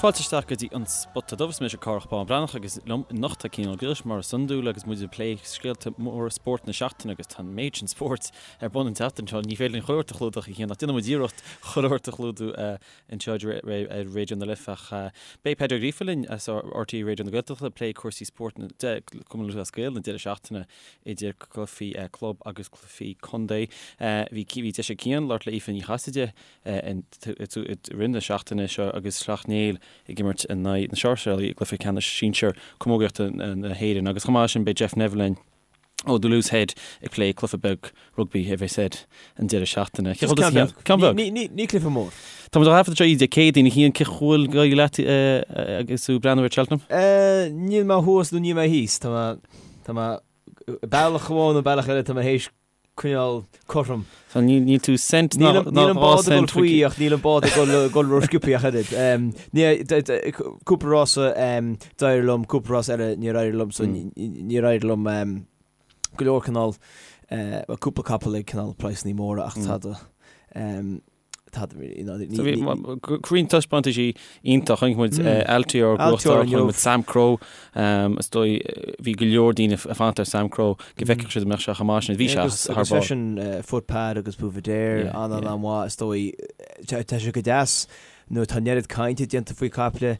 Fáilte isteach go dtí an Spota Dubh. Is mise Cárthach Bán Breathnach agus liom anocht tá Cian Ó Griallais mar is iondúil agus muid ag plé scéalta móra spóirt na seachtaine agus tá an méid sin spóirt ar bun an tseachtain seo. Ní féidir linn chuile shórt a chlúdach a Chian ach déanfaidh muid iarracht chuile shórt a chlúdú anseo ar Raidió na Life ach beidh Peadar Ó Gríofa linn as RTÉ Raidió na Gaeltachta ag plé cúrsaí spóirt de Chumann Lúthchleas Gael an deireadh seachtaine idir cluichí club agus cluichí contae. Bhí deis ag Cian labhairt le Aoife Ní Chasaide i rith na seachtaine seo agus Sleacht Néill ag imirt in aghaidh na Sáirséalaigh i gcluiche ceannais sinsir camógaíochta na hÉireann. Agus chomh maith leis sin beidh Jeff Neville linn ó The Loose Head ag plé cluiche beag rugbaí a bheas air an deireadh seachtaine. Cé chomh Ceann beag. Ceann beag. Ní cluiche mór. Tá muid á thaifead anseo Dé Céadaoin a Chian, cén chaoi a bhfuil ag éirí leat agus tú ag breathnú ar Cheltenham? Níl mé thuas nó níl mé thíos. Tá mé, tá mé bealach amháin nó bealach eile tá mé théis coinneáil cothrom. So níl tú cent ná Níl an bád ag dul faoi ach níl an bád ag dul ró-sciobtha ach oiread. Cúpla rása d'éirigh liom, cúpla rás eile níor éirigh liom, so níor éirigh liom go leor cineál, cúpla capall ag cineál praghsanna móra ach tada. Roinnt taispeántaisí iontach, chonaic muid Altior gnóthachtáil, chonaic muid Samcro, is dóigh bhí go leor daoine ag fanacht ar Samcro go bhfeicfeadh siad an mbeadh sé chomh maith sin, bhí sé thar barr. Agus freisin Footpad agus Buveur d'Air an-an-mhaith is dóigh, tá sé go deas nuair atá an oiread cainte déanta faoi caiple.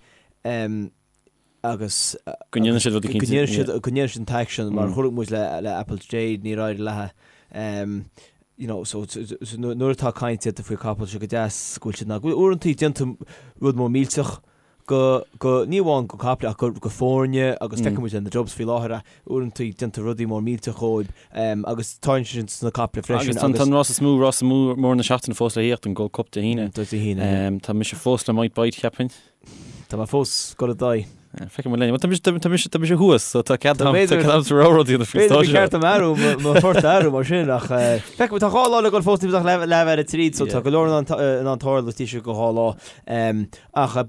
agus go ndéanann siad rud eicínt go ndéanann siad go ndéanann siad an t-aicsean mar chonaic muid le le Apple Jade níor éirigh léi you know so so nuair atá caint déanta faoi capall sé go deas go bhfuil siad ná go bhfuil uaireantaí déanta rud mór millteach go go ní amháin go caiple ach go go foirne agus feiceann muid le na Dubs faoi láthair uaireantaí déanta rudaí mór millteach dhóibh agus tá sin sna caiple freisin agus tá an rás is mó rás mór na seachtaine fós le thíocht an Gold Cup Dé hAoine. Dé hAoine. Tá mise fós le Might Bite cheapfainn. Tá mé fós ag dul i d'aghaidh. Feicfidh muid linn. Tá mise, tá mise, tá mise thuas, so tá cead agam, tá cead agam sa rogha rud a dhéanamh faoin stáitse. B'fhéidir gur ceart dom athrú, mo phort a athrú mar sin, ach feicfidh muid, tá 2 lá le dul fós, níl ach leath ar a tríd, so tá go leor in ann tarlú istigh go 2 lá. Ach an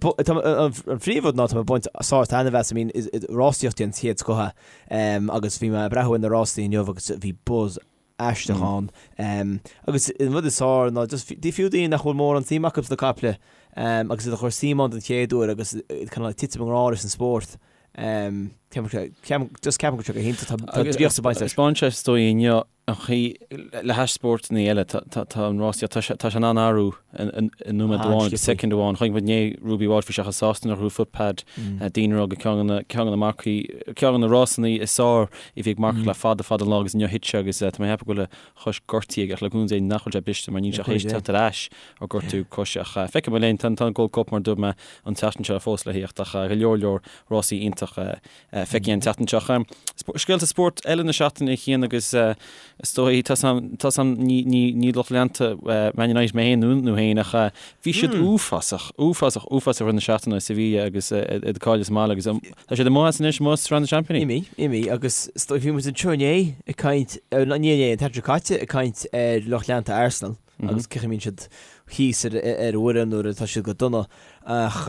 phríomhrud ná tá mé ag baint sár taitneamh as, I mean, rásaíocht den chéad scoth é, agus bhí mé ag breathnú ar na rásaí inniu agus bhí buzz aisteach ann. Agus an rud is fearr ná just fiú daoine nach bhfuil mórán suim acu sna caiple agus iad a chur suim ann den chéad uair agus cineál ag titim i ngrá leis an spórt. Ceapaim just ceapaim go bhfuil sé go hiontach. Tá draíocht ag baint leis. Taispeáin sé is dóigh inniu an chaoi le hais spórtanna eile tá an rásaíocht tá sé tá sé in ann athrú i nóiméad amháin, i soicind amháin. Chonaic muid inné Ruby Walsh bhí sé chomh sásta nuair a ghnóthaigh Footpad daoine ag rá gur ceann de na ceann de na marcaí ceann de na rásanna is fearr a bhí ag marcach le fada fada an lá agus inniu thit sé agus tá mé ag ceapadh go bhfuil a chois gortaithe aige ach le cúnamh Dé nach bhfuil sé briste mar níl sé théis teacht ar ais ó gortú coise ach feicfidh muid linn. Tá an Gold Cup mar a dúirt mé an tseachtain seo fós le thíocht ach go leor leor rásaí iontach feicthe an tseachtain seo. Scéalta spóirt eile na seachtaine a Chian agus is dóigh tá a fhios agam ní lucht leanta Man United mé féin nó tú féin ach bhí siad uafásach, uafásach, uafásach i rith na seachtaine i Sevilla agus iad ag cailleadh sa mbaile agus tá siad amuigh as anois, amuigh as Sraith na Seaimpíní. Imithe, imithe agus is dóigh bhí muid anseo inné ag caint, ní inné, an tseachtain seo caite ag caint ar lucht leanta Arsenal agus cén chaoi a mbíonn siad thíos ar an bhfoireann nuair atá siad go dona ach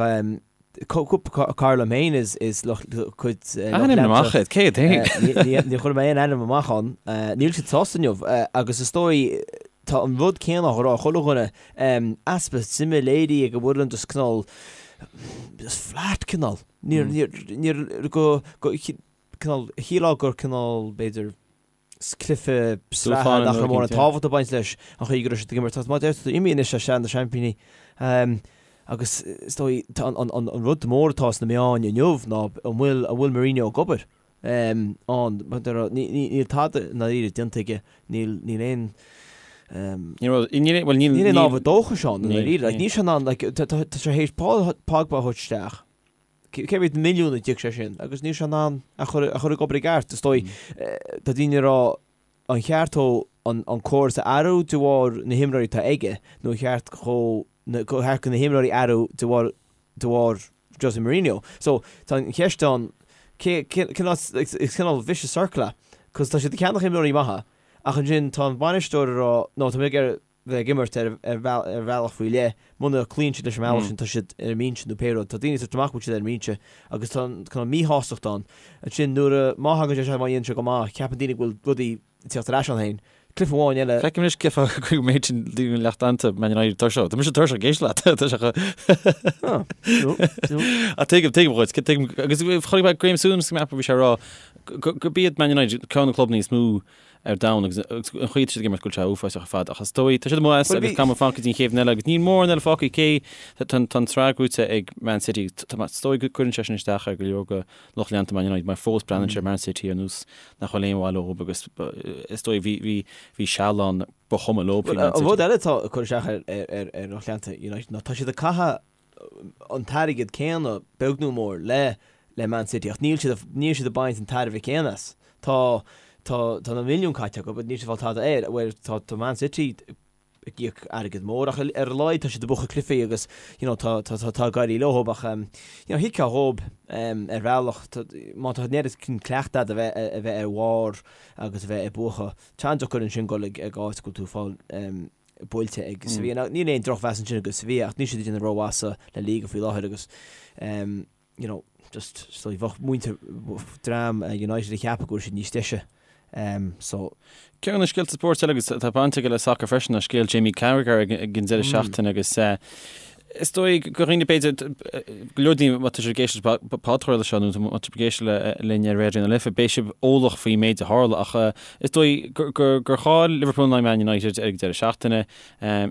Cúpla cara liom féin is lucht cuid lucht Ainm amach iad, cé iad féin? Ní chuirfidh mé aon ainm amach ann. Níl siad sásta inniu agus is dóigh tá an rud céanna á rá ag chuile dhuine, easpa suime léirithe ag an bhfoireann just cineál just flat cineál. Níor níor go go cineál shílfeá gur cineál b'fhéidir cluiche sraithe nach raibh mórán tábhacht ag baint leis an chaoi go raibh siad ag imirt. Mar a deir tú imithe anois as Sraith na Seaimpíní agus is dóigh an rud mór atá sna meáin inniu ná an bhfuil an bhfuil Mourinho ag obair ann. Níl tada i ndáiríre déanta aige, níl níl aon níl aon ábhar dóchais ann i ndáiríre. Níl sé in ann tá sé tar éis Paul Pogba a thabhairt isteach. Cé mhéad milliún a d'íoc sé sin agus níl sé in ann a chur a chur ag obair i gceart. Is dóigh, tá daoine ag rá an cheart dó an córas a athrú de bharr na himreoirí atá aige nó an cheart dhó go cheart do na himreoirí athrú de bharr de bharr Jose Mourinho. So tá an cheist ann cé cineál is cineál vicious circle é cos tá siad ag ceannach imreoirí maithe ach ansin tá an bainisteoir ag rá no tá mé ag iarraidh bheith ag imirt ar bhealach faoi leith, muna gcloíonn siad leis an mbealach sin, tá siad ar an mbinse nó pé rud. Tá daoine ag tabhairt amach go bhfuil siad ar an mbinse agus tá an cineál míshástacht ann. Ansin nuair a, má thagann sé isteach, má dhéanann sé go maith, ceapann daoine go bhfuil rudaí ag teacht ar ais ann féin. Cluiche amháin eile. Feicim anois cén fáth go mbeidh sin daoine lucht leanta Man United tuirseach. Tá mise tuirseach ag éisteacht leat. Tá sé chomh. Ah, no, no. Ach tuigim, tuigim dhuit, tuigim, agus chonaic mé Graeme Souness go mbeadh, bhí sé ag rá gurb iad Man United ceann de na clubanna is mó ar domhan agus an chaoi atá siad ag imirt go bhfuil sé uafásach ar fad ach is dóigh, tá siad amuigh as agus caithfidh muid fanacht go dtí an chéad bhliain eile agus níl mórán eile fágtha cé tá an tsraith gnóthaithe ag Man City tá is dóigh go gcuireann sé sin isteach ar go leor de lucht leanta Man United mar fós breathnaíonn siad ar Man City ar nós nach bhfuil aon mhaith leo agus is dóigh bhí bhí bhí seal ann ba chuma leo faoi Man An City. rud eile atá ag cur isteach ar ar ar lucht leanta United ná tá siad ag caitheamh an t-airgead céanna, beag nó mór, le le Man City ach níl siad níl siad ag baint an tairbhe céanna as. Tá tá tá na milliúin caite acu but níl siad ag fáil tada air. Bhuel tá tá Man City ag íoc airgead mór ach ar a laghad tá siad ag buachan cluichí agus you know tá tá tá tá ag éirí leo ach um, you know thuigfeá dhóib um, ar bhealach tá má tá an oiread cleachtadh agat a bheith a bheith ar bharr agus a bheith ag buachan. Tá an-deacair ansin dul ag ag áit go bhfuil tú ag fáil um, buailte ag Sevilla. Now, níl aon drochmheas ansin do Sevilla ach níl siad ag déanamh rómhaith sa La Liga faoi láthair agus um, you know, just so bheadh muintir dream uh, United ag ceapadh go bhfuil siad níos deise. Um, so Ceann de na scéalta spóirt eile agus tá baint aige le sacar freisin ná scéal Jamie Carragher ag, ag an deireadh mm. seachtaine agus uh, Is dóigh go dhaoine b'fhéidir, go leor daoine má tá sibh ag éisteacht leis an bpodchraoladh seo nó má tá sibh ag éisteacht linn ar Raidió na Life, beidh sibh eolach faoin méid a tharla ach is dóigh gur chaill Liverpool in aghaidh Man United ar an deireadh seachtaine.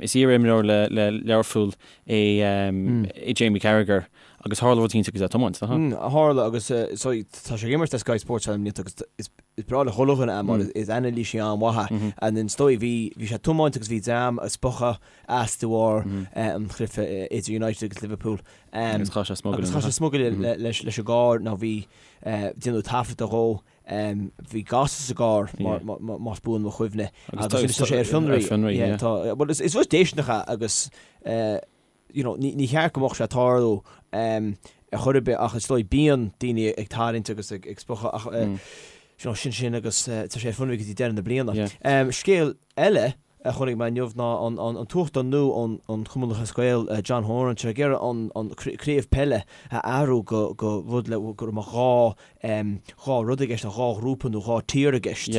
Is iar-imreoir le Learpholl é Jamie Carragher agus tharla rud éicint agus é ag tiomáint, nach ea? Tharla agus so tá sé ag imirt le Sky Sports le blianta agus is breá le chuile dhuine é mar is anailísí an-mhaith é. And is dóigh bhí sé ag tiomáint agus bhí dream ag spochadh as de bharr an chluiche idir United agus Liverpool. Agus chaith sé smugairle. Agus chaith sé smugairle leis an gcarr nó bhí déanadh taifead dhó. Bhí gás sa gcarr más buan mo chuimhne. Agus tá sé ar fionraí. Bhuel is rud déistineach é agus you know ní cheart go mbeadh sé ag tarlú ar chor ar bith ach is dóigh bíonn daoine ag tarraingt agus ag spochadh ach you know sin sin agus tá sé ar fionraí go dtí deireadh na bliana. Scéal eile a chonaic mé inniu ná an tUachtarán nua ón Chumann Lúthchleas Gael, John Horan, tá sé ag iarraidh an craobh peile a athrú go go rud le go mbeadh 2 rud i gceist, 2 ghrúpa nó 2 tír i gceist.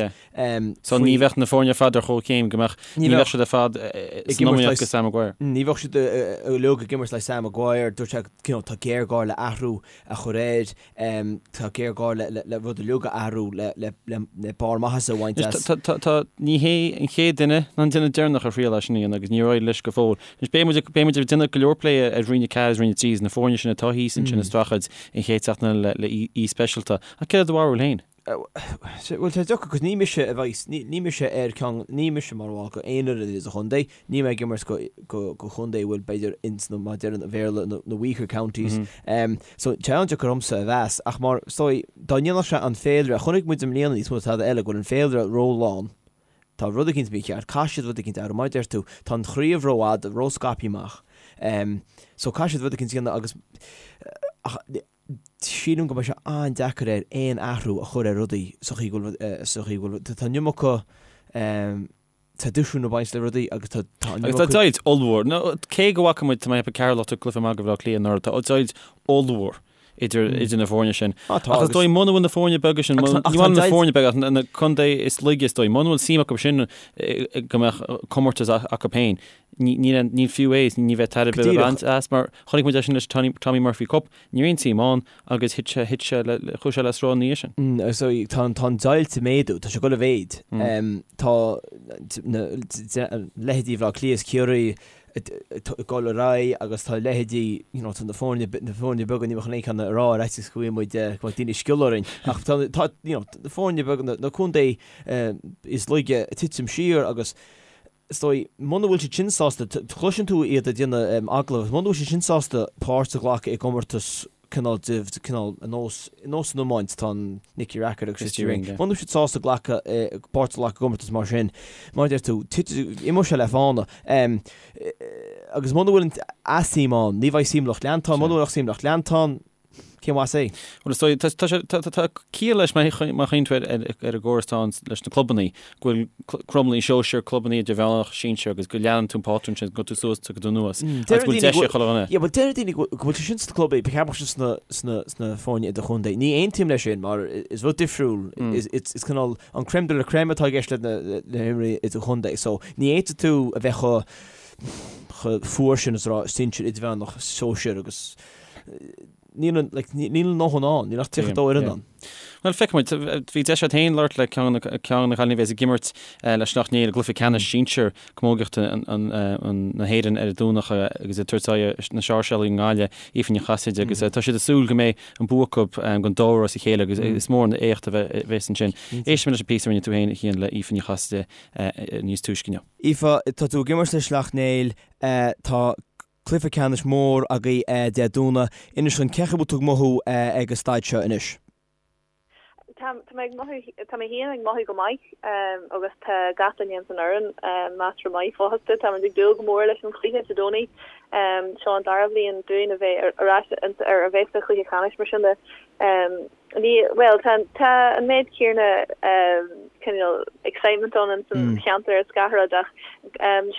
So ní bheadh na foirne ar fad ar chomhchéim, go mbeadh, ní bheadh siad ar fad san iomaíocht go Sam Maguire. Ní bheadh siad uilig ag imirt le Sam Maguire, dúirt sé you know tá géarghá le athrú a chur air. Tá géarghá le rud uilig a athrú le barr maitheasa a bhaint as. Tá, ní hé an chéad duine ná an duine deireanach a thriail é sin a dhéanamh agus níor éirigh leis go fóill. Anois beidh muid, beidh muid ag déanamh go leor plé ar Roinn 4 agus Roinn 3 agus na foirne sin atá thíos ansin ag streachailt an chéad seachtain eile le aoi speisialta. Ach céard é do bharúil féin? Bhuel, tá deacair, cos ní mise a bheidh, ní mise ar ceann, ní mise mar bhall go aon fhoireann sa chontae, níl mé ag imirt go, go, go chontae a bhfuil b'fhéidir ins na, mar a deireann an Bhéarla, na, na weaker counties. So, tá sé an-deacair ormsa a mheas, ach mar, is dóigh, dá ndéanfadh sé an féilire, chonaic muid i mbliana níos mó ná tada eile go bhfuil an féilire ró-lán, tá rud eicínt mícheart, caithfidh siad rud eicínt a athrú, mar a deir tú, tá an chraobh rófhada, ró-scaipthe amach. So, caithfidh siad rud eicínt a dhéanamh agus, ach, Sílim go mbeidh sé an-deacair air aon athrú a chur ar rudaí sa chaoi go bhfuil, sa chaoi go bhfuil, tá an iomarca traidisiún ag baint le rudaí agus tá an iomarca. Agus tá deighilt ollmhór, nó cé go bhfaca muid, tá mé ag ceapadh Ceatharlach ag cluiche maith do Bhaile Átha Cliath anuraidh, tá deighilt ollmhór idir, idir na foirne sin. Á tá, Ach is dóigh muna bhfuil na foirne beaga sin, ní bhfuil na foirne beaga ach na contae is laige is dóigh, muna bhfuil suim acu sin go mbeadh comórtas acu féin, Ní fiú é, ní bheidh tairbhe le baint as mar chonaic muid é sin leis an Tommy Murphy Cup, ní raibh aon tsuim ann agus thit sé, thit sé le, chuaigh sé le sruth ina dhiaidh sin. So tá an deighilt ag méadú, tá sé ag dul i mhéid. Tá na leithéidí Bhaile Átha Cliath is Ciarraí ag dul ar aghaidh agus tá leithéidí, you know, tá na foirne, na foirne beaga, ní bheadh aon cheann a rá ar fhaitíos go bhfaighidh muid, go mbeadh daoine ag sciolladh orainn ach tá, tá, you know, na foirne beaga, na contae is laige ag titim siar agus Is dóigh, muna bhfuil siad sin sásta, cloiseann tú iad ag déanamh agallamh, muna bhfuil siad sin sásta páirt a ghlacadh i gcomórtas cineál de, cineál ar nós, ar nós san iomáint, tá an Nicky Rackard agus Christy Ring, muna bhfuil siad sásta glacadh, páirt a ghlacadh i gcomórtas mar sin, mar a deir tú, imeoidh sé le fána. Agus muna bhfuil an suim ann, ní bheidh suim lucht leanta ann, muna bhfuil suim lucht leanta ann. Cén mhaith é? Bhuel, is dóigh, tá, tá sé, tá, tá, tá ciall leis má má chuimhníonn tú ar, ar, ar an gcóras atá ann leis na clubannaí, go bhfuil clubannaí sóisir, clubannaí idirmheánach, sinsir agus go leanann tú an pátrún sin, go tú suas, go tú anuas, agus go bhfuil deis ag chuile dhuine. Yeah, bhuel, deir daoine go bhfuil sé sin sna clubannaí, ba cheart go mbeadh sé sna, sna, sna foirne idirchontae. Ní aontaím leis sin mar is rud difriúil, is, is, is cineál an crème de la crème atá i gceist le na, le himreoirí idirchontae. So, ní fhéadfaidh tú a bheith chomh, chomh fuar sin is a rá sinsir, idirmheánach, sóisir agus níl an, like, níl a ndóthain ann, níl ach 32 fhoireann ann. Bhuel, feicfidh muid. Bhí deis agat féin labhairt le ceann de na cailíní a bheas ag imirt le Sleacht Néill i gcluiche ceannais sinsir camógaíochta na hÉireann ar an Domhnach agus ag tabhairt aghaidh ar na Sáirséalaigh i nGaillimh, Aoife Ní Chasaide, agus tá siad ag súil go mbeidh an bua acu don dara huair as a chéile agus is mór an éacht a bheas ansin. Éistfimid leis an bpíosa a rinne tú féin, a Chian, le Aoife Ní Chasaide níos túisce inniu. Aoife, tá tú ag imirt le Sleacht Néill, tá Cluiche ceannais mór agaibh Dé Domhnaigh. Inis dúinn cén chaoi a bhfuil tú ag mothú ag an staid seo anois. Tá mé ag mothú, tá mé féin ag mothú go maith agus tá gach duine ins an fhoireann measartha maith fosta. Táimid ag dúil go mór leis an chluiche Dé Domhnaigh. Seo an dara bhliain dúinn a bheith ar ais ar a bheith sa chluiche ceannais mar sin de. Ní, bhuel, tá, tá an méid céanna cineál excitement ann ins an cheantar is gach rud ach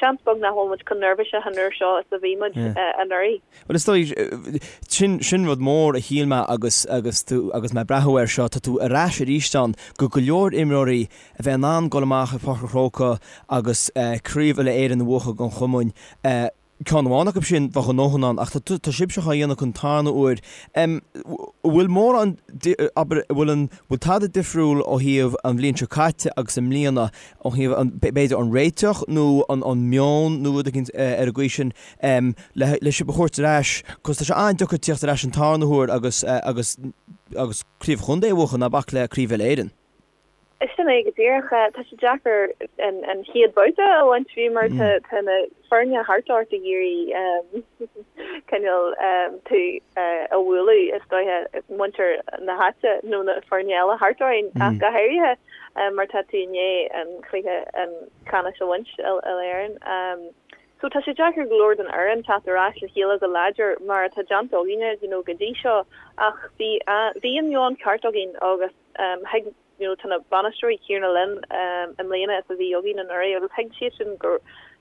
seans beag nach bhfuil muid chomh neirbhíseach an uair seo is a bhí muid anuraidh. Bhuel, is dóigh, sin, sin rud mór a shíl mé agus, agus tú, agus mé ag breathnú air seo, tá tú ar ais arís ann go go leor imreoirí a bheith in ann dul amach ar Pháirc an Chrócaigh agus Craobh Uile-Éireann a bhuachan don chumann. Ceann amháin acu sin, bheadh a ndóthain ann, ach tá sibhse á dhéanamh don tarna huair. An bhfuil mórán, abair, an bhfuil an, bhfuil tada difriúil ó thaobh an bhliain seo caite agus i mbliana, ó thaobh an, b'fhéidir an réiteach nó an an meon nó rud éicint ar an gcaoi sin le le sibh a thabhairt ar ais, 'cause tá sé an-deacair tíocht ar ais an tarna huair agus agus agus craobh chontae a bhuachan, ná bac le craobh Uile-Éireann. Sin é go díreach. Tá sé deacair an chéad babhta a bhaint fiú mar tá na foirne thart ort ag iarraidh cineál tú a bhualadh is dóiche, muintir na háite nó na foirne eile thart orainn ach go háirithe mar tá tú i ndiaidh an chluiche ceannais a bhaint Uile-Éireann. So tá sé deacair go leor don fhoireann teacht ar ais le chéile go láidir mar atá déanta againne you know go dtí seo ach bhí bhí an meon ceart againn agus Thuig, you know, tá na bainisteoirí céanna linn i mbliana is a bhí againn anuraidh agus thuig siad sin gur,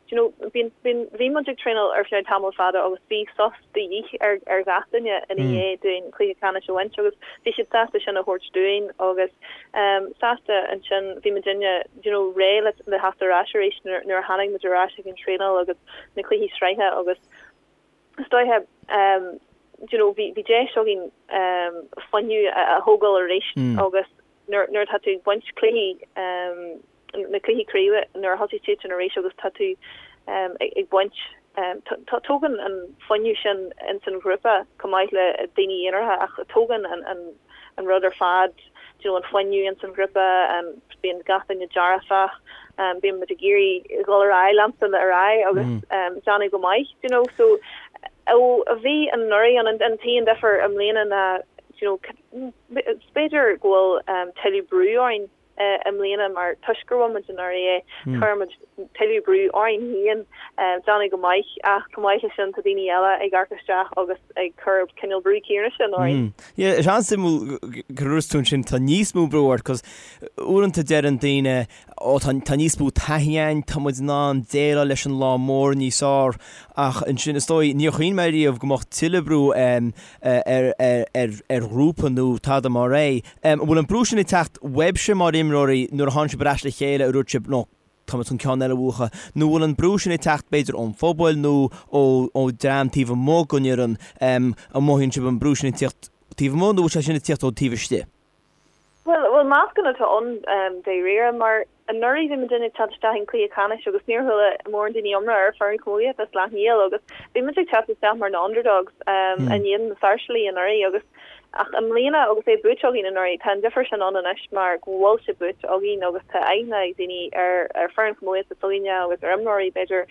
you know, bíonn, bíonn, bhí muid ag traenáil ar feadh tamall fada agus bhí sos de dhíth ar, ar gach duine ina dhiaidh dúinn cluiche ceannais a bhaint agus bhí siad sásta sin a thabhairt dúinn agus sásta ansin bhí muidinne, you know, réidh le, le theacht ar ais arís nuair, nuair a tháinig muid ar ais ag an traenáil agus na cluichí sraithe agus is dóiche, you know, bhí deis againn fuinneamh a thógáil arís agus nuair atá tú ag baint cluichí, na cluichí craoibhe, nuair a thosaigh siad sin arís agus tá tú ag baint, tógann an fuinneamh sin ins an ghrúpa chomh maith le daoine aonaracha ach tógann an rud ar fad, you know, an fuinneamh ins an ghrúpa, bíonn gach duine dearfach, bíonn muid ag iarraidh dhul ar aghaidh, leanstan ar aghaidh agus déanamh go maith, you know, so ó a bhí anuraidh an an t-aon difear i mbliana ná, you know, b'fhéidir go bhfuil tuilleadh brú orainn i mbliana mar toisc gur bhain muid anuraidh é, chuir muid tuilleadh brú orainn féin déanamh go maith ach chomh maith leis sin tá daoine eile ag amharc isteach agus ag cur cineál brú céanna sin orainn. Yeah, is an-suimiúil gur dúirt tú ansin tá níos mó brú ort 'cause uaireanta deireann daoine ó tá tá níos mó taithí againn, tá muid in ann déileáil leis an lá mór níos fearr ach ansin is dóigh níor chuimhnigh mé riamh go mbeadh tuilleadh brú ar ar ar ghrúpa nó tada mar é. An bhfuil an brú sin ag teacht uaibhse mar imreoirí nuair a tháinig sibh ar ais le chéile a dúirt sibh no tá muid chun ceann eile a bhuachan nó bhfuil an brú sin ag teacht b'fhéidir ón phobal nó ó ó dream taobh amuigh den fhoireann? An mothaíonn sibh an brú sin ag tíocht taobh amuigh nó bhfuil sé sin ag tíocht ó taobh istigh? Bhuel, bhuel meascán atá ann dáiríre mar anuraidh bhí muidinne ag teacht isteach in cluiche ceannais agus níor chuala mórán daoine iomrá ar foireann camógaíochta Sleacht Néill agus bhí muid ag teacht isteach mar na underdogs in éadan na Sáirséalaigh anuraidh agus ach i mbliana agus é buaite againn anuraidh tá an difear sin ann anois mar go bhfuil sé buaite againn agus tá aithne ag daoine ar ar foireann camógaíochta s'againne agus ar imreoirí b'fhéidir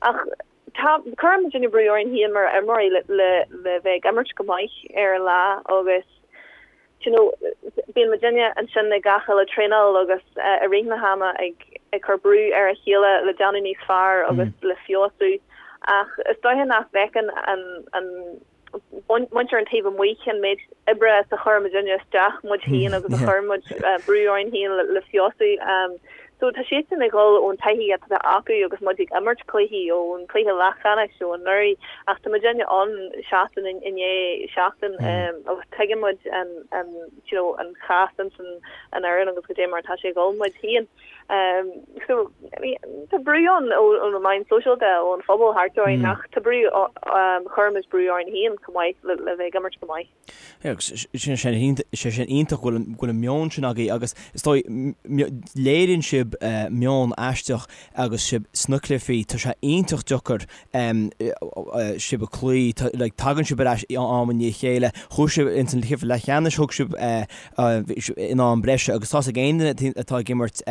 ach Tá, cuireann muidinne brú orainn féin mar imreoirí le le le bheith ag imirt go maith ar an lá agus you know bíonn muidinne ansin ag gach uile traenáil agus i rith na hama ag ag cur brú ar a chéile le déanamh níos fearr agus le feabhsú ach is dóiche nach bhfeiceann an an. Muintir an taobh amuigh cén méid oibre is a chuir muidinne isteach muid féin agus a chuir muid brú orainn féin le feabhsú. So tá siadsan ag dhul ón taithí atá acu agus muid ag imirt cluichí ón cluiche leathcheannais ó anuraidh ach tá muidinne ann seachtain i ndiaidh seachtain agus tuigeann muid an you know an chás ins an fhoireann agus goidé mar atá sé ag dhul muid féin. So tá brú ann ó na meáin sóisialta, ón phobal thart orainn ach tá brú, chuir muid brú orainn féin chomh maith le bheith ag imirt go maith. Agus sin sé sin iontach go bhfuil an meon sin agaibh agus is dóigh léiríonn sibh meon aisteach agus sibh sna cluichí, tá sé iontach deacair sibh a chloí, like tagann sibh ar ais am i ndiaidh a chéile, chuaigh sibh ins an cluiche leathcheannais, thug sibh in am breise agus tá's ag aon duine atá ag imirt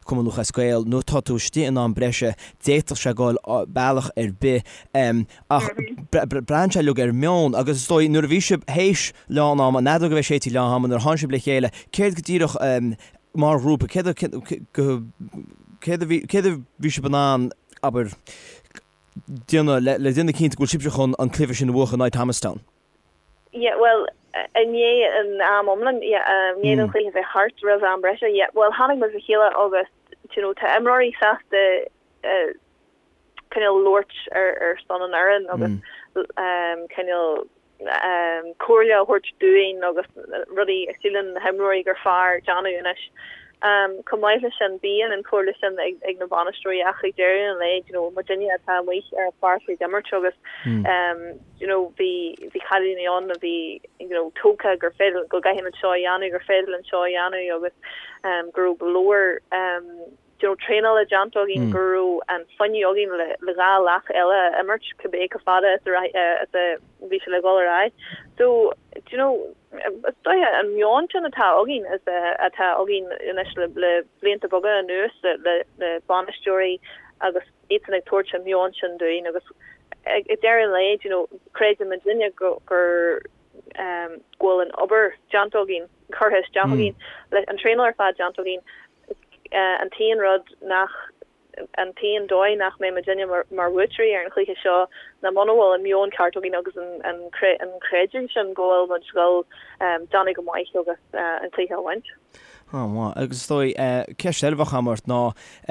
Cumann Lúthchleas Gael nuair atá tú istigh in am breise d'fhéadfadh sé goil bealach ar bith ach braitheann sé uilig ar meon agus is dóigh nuair a bhí sibh théis lán ama, an fheadóg a bheith séidte lán ama nuair a tháinig sibh le chéile céard go díreach mar ghrúpa céard céard a bhí céard a bhí sibh in ann abair déanamh le déanamh cinnte go bhfuil sibhse chun an cluiche sin a bhuachan in aghaidh Thomastown? Yeah, bhuel, i ndiaidh an am iomlán, yeah, i ndiaidh don chluiche bheith thart roimh am breise, yeah, bhuel, tháinig muid le chéile agus, you know, tá imreoirí sásta eh, cineál labhairt ar, ar son an fhoireann agus um, cineál um, comhairle a thabhairt dúinn agus rudaí a síleann na himreoirí gur fearr déanamh anois. Um, chomh maith leis sin, bíonn an chomhairle sin ag, ag na bainisteoirí ach ag deireadh an lae, you know, muidinne atá amuigh ar an pháirc ag imirt agus um, you know, bhí, bhí cailíní ann a bhí, you know, tógtha gur féidir, go gcaithfimid seo a dhéanamh, gur féidir linn seo a dhéanamh agus um, go raibh go leor um, you know, traenála déanta againn, go raibh an fuinneamh againn le, le 2 leath eile a imirt, cibé chomh fada is a, is a bhí sé le dhul ar aghaidh. So, do you know, is dóiche an meon sin atá againn is atá againn anois le, le blianta beaga anuas le, le, le bainisteoirí agus iadsan ag tabhairt an meon sin dúinn agus ag deireadh an lae, you know, creideann muidinne go, gur, um, go bhfuil an obair déanta againn, curtha isteach againn, le an traenáil ar fad déanta againn, an t-aon rud nach, an t-aon dóigh nach mbeidh muidinne mar, mar bhuaiteoirí ar an chluiche seo ná muna bhfuil an meon ceart againn agus an, an, an creidiúint sin go bhfuil muid dhul, um, déanamh go maith agus, uh, an cluiche a bhaint. An-mhaith. Agus is dóigh, ceist eile a bheadh agam ort ná,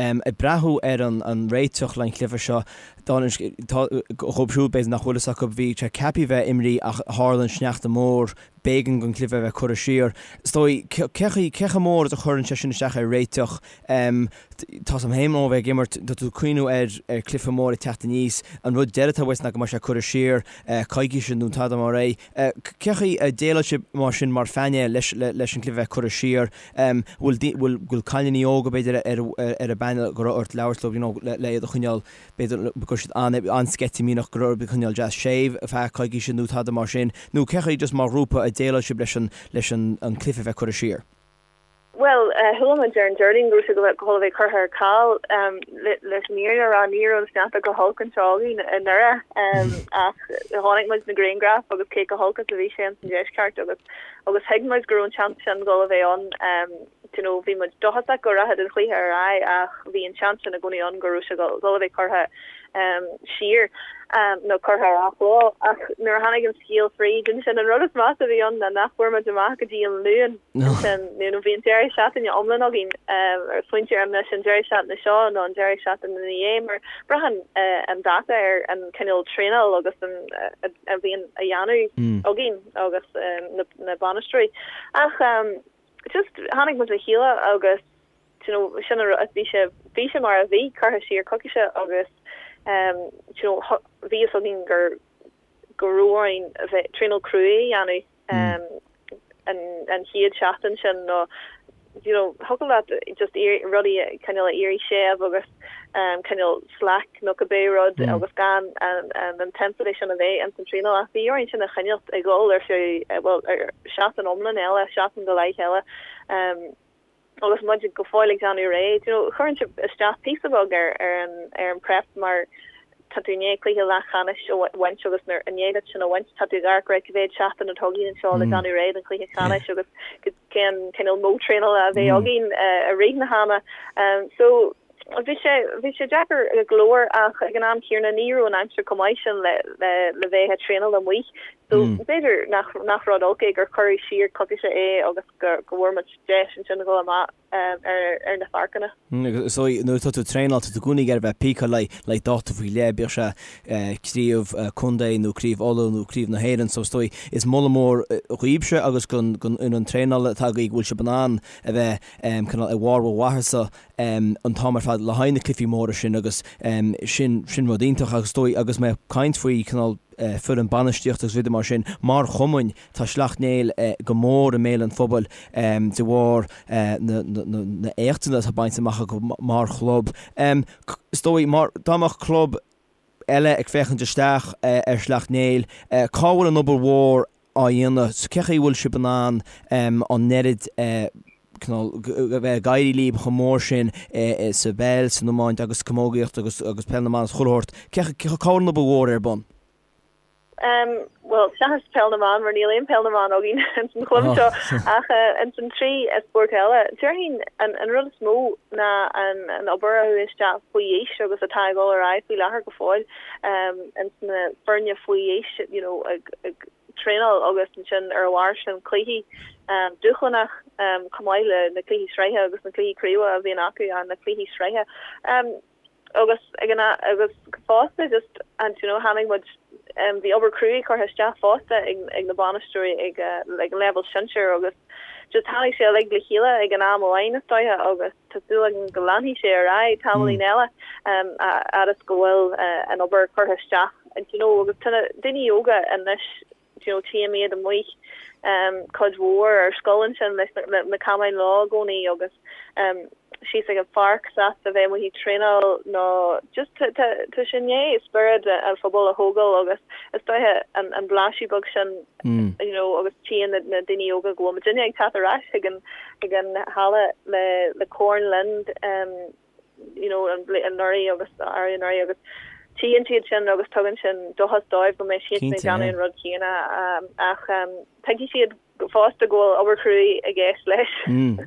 ag breathnú ar an réiteach le an chluiche seo, dóibh siúd b'fhéidir nach bhfuil fhios acu, bhí sé ceaptha a bheith imrithe ach tharla an sneachta mór, b'éigean don chluiche a bheith curtha siar. Is dóigh, cé chomh mór is a chuireann sé sin isteach ar réiteach? Tá's agam féin ó bheith ag imirt, tá tú ag cuimhniú ar chluiche mór ag teacht aníos, an rud deiridh atá uait ná go mbeidh sé curtha siar coicíse nó tada mar é. Cé chaoi a déileáil sibh mar sin mar phainéal leis an gcluiche bheith curtha siar? Bhfuil bhfuil cailíní óga b'fhéidir ar ar an bpainéal go raibh ort labhairt leo you know le iad a choinneáil b'fhéidir go raibh siad an-sceitimíneach go raibh orthu coinneáil deas séimh ar feadh coicíse nó tada mar sin nó cé chaoi just mar ghrúpa a déileáil sibh leis an leis an cluiche bheith curtha siar? Bhuel, chuala muid ar an Déardaoin go raibh sé dhul a bheith curtha ar ceal. Leis an fhírinne a rá, ní raibh an sneachta chomh holc anseo againn i nDoire ach chonaic muid na grianghraif agus cé chomh holc is a bhí sé ins an deisceart agus agus thuig muid go raibh an seans sin dhul a bheith ann. You know, bhí muid dóchasach go rachadh an chluiche ar aghaidh ach bhí an seans sin i gcónaí ann go raibh sé dhul a bheith curtha siar nó curtha ar athló. Ach nuair a tháinig an scéal fríd ansin, an rud is measa a bhí ann ná nach bhfuair muid amach go dtí an Luan ansin, you know, bhí an deireadh seachtaine iomlán againn ar smaointiú an mbeadh sé an deireadh seachtaine seo nó an deireadh seachtaine ina dhiaidh mar braitheann an dáta ar an cineál traenáil agus an a bhíonn á dhéanamh againn agus na bainisteoirí. Ach just tháinig muid le chéile agus you know, sin an rud, bhí sé, bhí sé mar a bhí, curtha siar coicíse agus um, you know, bhí fhios againn gur, go raibh orainn a bheith, traenáil cruaidh a dhéanamh um, an, an chéad seachtain sin nó you know, thiocfadh leat just rudaí cineál a éirí séimh agus um, cineál slack nó cibé rud mm. agus gan an, an intensity sin a bheith ins an traenáil ach bhí orainn sin a choinneáil ag dul ar feadh, eh, well, ar seachtain iomlán eile, seachtain go leith eile. Um, agus muid go fóill ag déanamh réidh, you know, cuireann sé isteach píosa beag ar ar an ar an prep mar tá tú i ndiaidh cluiche leathcheannais a bhaint agus nuair i ndiaidh duit sin a bhaint tá tú ag amharc right cá mhéad seachtain atá againn anseo le déanamh réidh don chluiche ceannais agus cén cineál modh traenála a bheidh againn i rith na hama. So. Bhí sé bhí sé deacair go leor ach ag an am céanna ní raibh an aimsir chomh maith sin le le le bheith ag traenáil amuigh. So b'fhéidir nach nach rud olc é gur cuireadh siar coicíse é agus go go bhfuair muid deis ansin a dhul amach ar ar na pháirceanna. Agus is dóigh nuair atá tú ag traenáil tá tú i gcónaí ag iarraidh bheith píceáilte le le dáta faoi leith, bíodh sé craobh contae nó craobh Uladh nó craobh na hÉireann. So is dóigh is moladh mór dhaoibhse agus don don fhoireann traenála atá agaibh go bhfuil sibh in ann a bheith cineál i bharr bhur mhaitheasa an t-am ar fad le haghaidh na cluichí móra sin agus sin sin rud iontach agus is dóigh agus mé ag caint faoi cineál foireann bainistíochta agus rudaí mar sin mar chumainn tá Sleacht Néill go mór i mbéal an phobail de bharr na na éachtanna atá bainte amach acu mar chlub. Is dóigh mar dá mbeadh club eile ag féachaint isteach ar Shleacht Néill, cá bhfuil an obair mhór á dhéanamh? Cé chaoi a bhfuil sibh in ann an oiread cineál a bheith ag éirí libh chomh mór sin sa bpeil, san iomáint agus camógaíocht agus agus peil na mban agus chuile shórt? Cé cá bhfuil an obair mhór ar bun? Bhuel, seachas peil na mban, mar níl aon peil na mban againn ins an chlub seo, ach ins an 3 spórt eile, déarfainn an rud is mó ná an obair a chuaigh isteach faoi aois agus atá ag dul ar aghaidh faoi láthair go fóill ins na foirne faoi aois, you know, ag ag traenáil agus ansin ar a bharr sin cluichí dúshlánach chomh maith le na cluichí sraithe agus na cluichí craoibhe a bhíonn acu, na cluichí sraithe. Agus ag an agus fosta just and you know tháinig muid um, bhí obair cruaidh curtha isteach fosta ag, ag na bainisteoirí ag, uh, ag an leibhéal sinsir agus just tháinig sé uilig le chéile ag an am amháin is dóiche agus tá súil agam go leanfaidh sé ar aghaidh tamaillín mm. eile um, a fhad is go bhfuil uh, an obair curtha isteach and you know agus tá na daoine óga anois you know tchím iad amuigh um, cuid mhór ar scoil ansin leis na, na camáin leo i gcónaí agus um, síos ag an pháirc sásta bheith amuigh ag traenáil nó just tá tá tá sé i ndiaidh spiorad an phobail a thógáil agus is dóiche an an blaiseadh beag sin you know agus tchíonn na na daoine óga go bhfuil muidinne ag teacht ar ais chuig an chuig an halla le le corn linn um, you know an anuraidh agus arú anuraidh agus tchíonn siad sin agus tugann sin dóchas dóibh go mbeidh siad ag déanamh an rud céanna um, ach um, tuigfidh siad fosta go bhfuil obair chruaidh i gceist leis.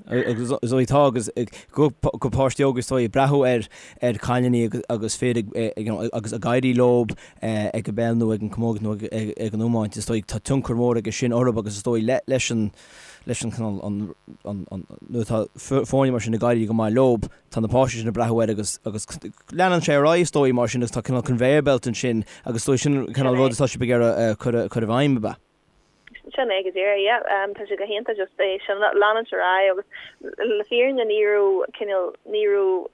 Agus is dóigh tá agus go páistí óga is dóigh ag breathnú ar ar cailíní agus fir ag agus ag éirí leo ag an bpeil nó ag an camógaíocht nó ag an iomáint is dóigh tá tionchar mór aige sin orthu agus is dóigh leis an leis an cineál an an nuair atá foirne mar sin ag éirí go maith leo tá na páistí sin ag breathnú air agus agus leanann sé ar aghaidh is dóigh mar sin agus tá cineál conveyor belt ansin agus is dóigh sin cineál rud atá sibh ag iarraidh cur cur i bhfeidhm ab ea? Sin é go díreach, yeah. Tá sé go hiontach just é sin leanúint ar aghaidh agus le fírinne ní raibh cineál, ní raibh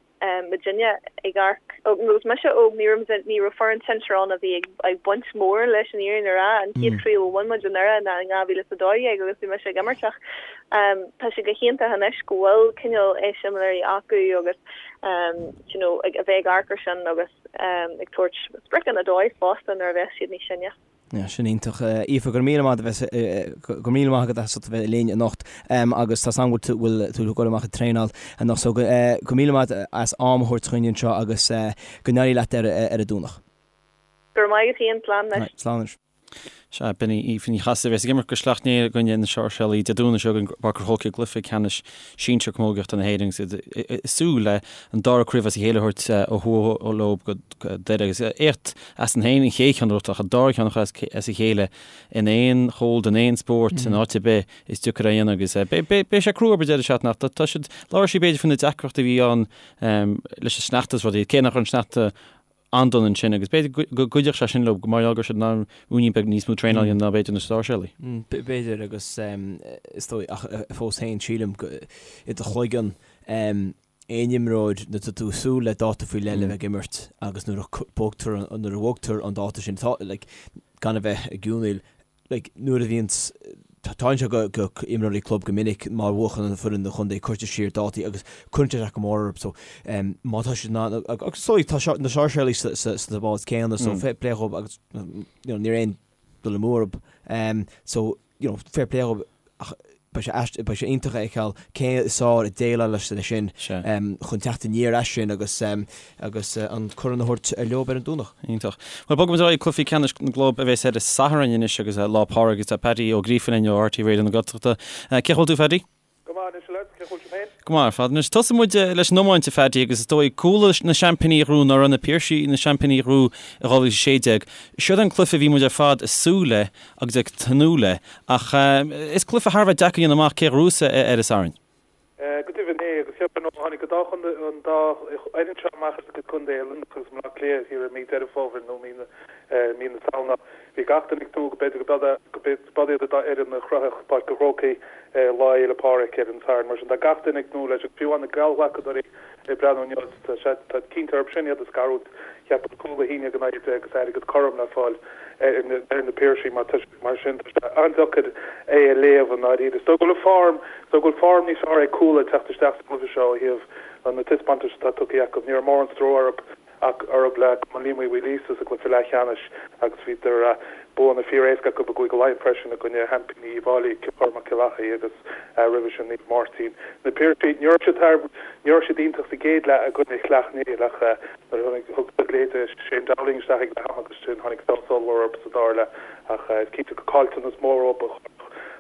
muidinne ag amharc, agus mise óg, ní raibh ní raibh foireann sinsir ann a bhí ag ag baint mór leis an fhírinne a rá. An chéad chraobh a bhain muid anuraidh ná in 2012 agus bhí mise ag imirt ach tá sé go hiontach anois go bhfuil cineál eiseamláirí acu agus you know ag a bheith ag amharc ar sin agus ag tabhairt spriocanna dóibh fosta nuair a bheas siad níos sine. Yeah, sin iontach. Aoife, go raibh míle maith agat, go raibh míle maith agat as ucht a bheith linn anocht agus tá 's agam go bhfuil tú ag dul amach ag traenáil anocht so go raibh míle maith agat as am a thabhairt chugainn anseo agus go n-éirí leat ar an Domhnach. Go raibh maith agat féin, slán anois. Slán anois. Sea, b'in í Aoife Ní Chasaide a bheas ag imirt do Shleacht Néill i gcoinne na Sáirséalaí Dé Domhnaigh seo chugainn i bPáirc an Chrócaigh i gcluiche ceannais sinsir camógaíochta na hÉireann agus iad ag súil le an dara craobh as a chéile a thabhairt ó thuaidh leo go Doire agus éacht as féin an chéad cheann a ghnóthachtáil ach an dara ceann a chur as a chéile in aon chomhlacht, in aon spórt, in áit ar bith, is deacair é a dhéanamh agus beidh sé crua orthu an deireadh seachtaine ach tá siad, labhair sí b'fhéidir faoi na deacrachtaí a bhí ann leis an sneachta is rudaí, cé nach raibh an sneachta an-dona ansin agus b'fhéidir go gcuideodh sé sin leo mar gheall go raibh siad in ann ruainnín beag níos mó traenáil a dhéanamh ná b'fhéidir na Sáirséalaigh. B'fhéidir agus is dóigh ach fós féin sílim go i do chloigeann aon imreoir nuair atá tú ag súil le dáta faoi leith le bheith ag imirt agus nuair a bhogtar nuair a bhogtar an dáta sin tá like gan a bheith ag geonaíl like nuair a bhíonn tarlaíonn sé go go imreoirí club go minic má bhuachann an foireann an chontae cuirtear siar dátaí agus cuireann sé isteach go mór orthu so um, má tá siad in ann agus so tá na Sáirséalaigh sa sa sa bád céanna so fair play dhóibh agus you know, níl aon dul amú orthu um, so you know, fair play dhóibh ach beidh sé aist, beidh sé iontach a fheiceáil cé is fearr ag déileáil leis leis sin chun teacht aniar as sin agus agus an corn a thabhairt leo ar an Domhnach. Iontach. Bhuel, bogfaidh muid ar aghaidh cluichí ceannais na gclub a bheas ar an Satharn anois agus Lá Pádraig agus tá Paddy Ó Gríofa linn ó RTÉ Raidió na Gaeltachta. Cén chaoi a bhfuil tú, Phaddy? Go maith anois, a lads. Cén chaoi a bhfuil sibh féin? Go maith ar fad. Anois, tosóidh muid leis an iomáint, a Phaddy, agus is dóigh, Cuala na seaimpíní a ghnóthaigh nuair a Na Piarsaigh na seaimpíní a ghnóthaigh i 2016. Siod an cluiche a bhí muid ar fad ag súil le agus ag tnúth le, ach is cluiche thar a bheith deacair a dhéanamh amach cé a ghnóthós é ar an Satharn. Go deimhin é, agus cheapfainn ó tháinig an dá chontae, an dá fhoireann seo amach as a gcuid contae, Luimneach agus Baile Átha Cliath, thiar i mí Deireadh Fómhair nó mí na, mí na Samhna, bhí gach duine ag tnúth go b'fhéidir go b'iad an dá fhoireann a shroichfeadh Páirc an Chrócaigh Lá Fhéile Pádraig ar an Satharn. Mar sin tá gach duine ag tnúth leis agus fiú amháin na geallghlacadóirí ag breathnú inniu, tá sé, tá cinnte orthu sin iad a scarúint. Cheapfainn cúl 1-11 agus airgead cothrom le fáil ar na Piarsaigh mar tá Mar sin, tá sé an-deacair é a léamh i ndáiríre. Is dóigh go bhfuil form, is dóigh go bhfuil form níos fearr ag Cuala ag teacht isteach sa gcluiche seo ó thaobh na taispeántais atá tugtha acu. Ní raibh mórán stró orthu ach orthu le Cumann Liam Uí Mhaoilíosa sa gcluiche leathcheannais agus bhíodar buanna fíor-éasca acu i gCúige Laighean freisin i gcoinne sheaimpíní Uíbh Fhailí, Cill Chormaic, Cill Achaidh agus roimhe sin Naomh Máirtín. Na Piarsaigh, ní raibh siad thar, ní raibh siad iontach sa gcéad leath i gcoinne Shleacht Néill ach nuair a thug siad leithéide Shane Dowling isteach ag leath ama agus sin tháinig feabhas ollmhór orthu sa dara leath. Ach is cinnte gur caillteanas mór dóibh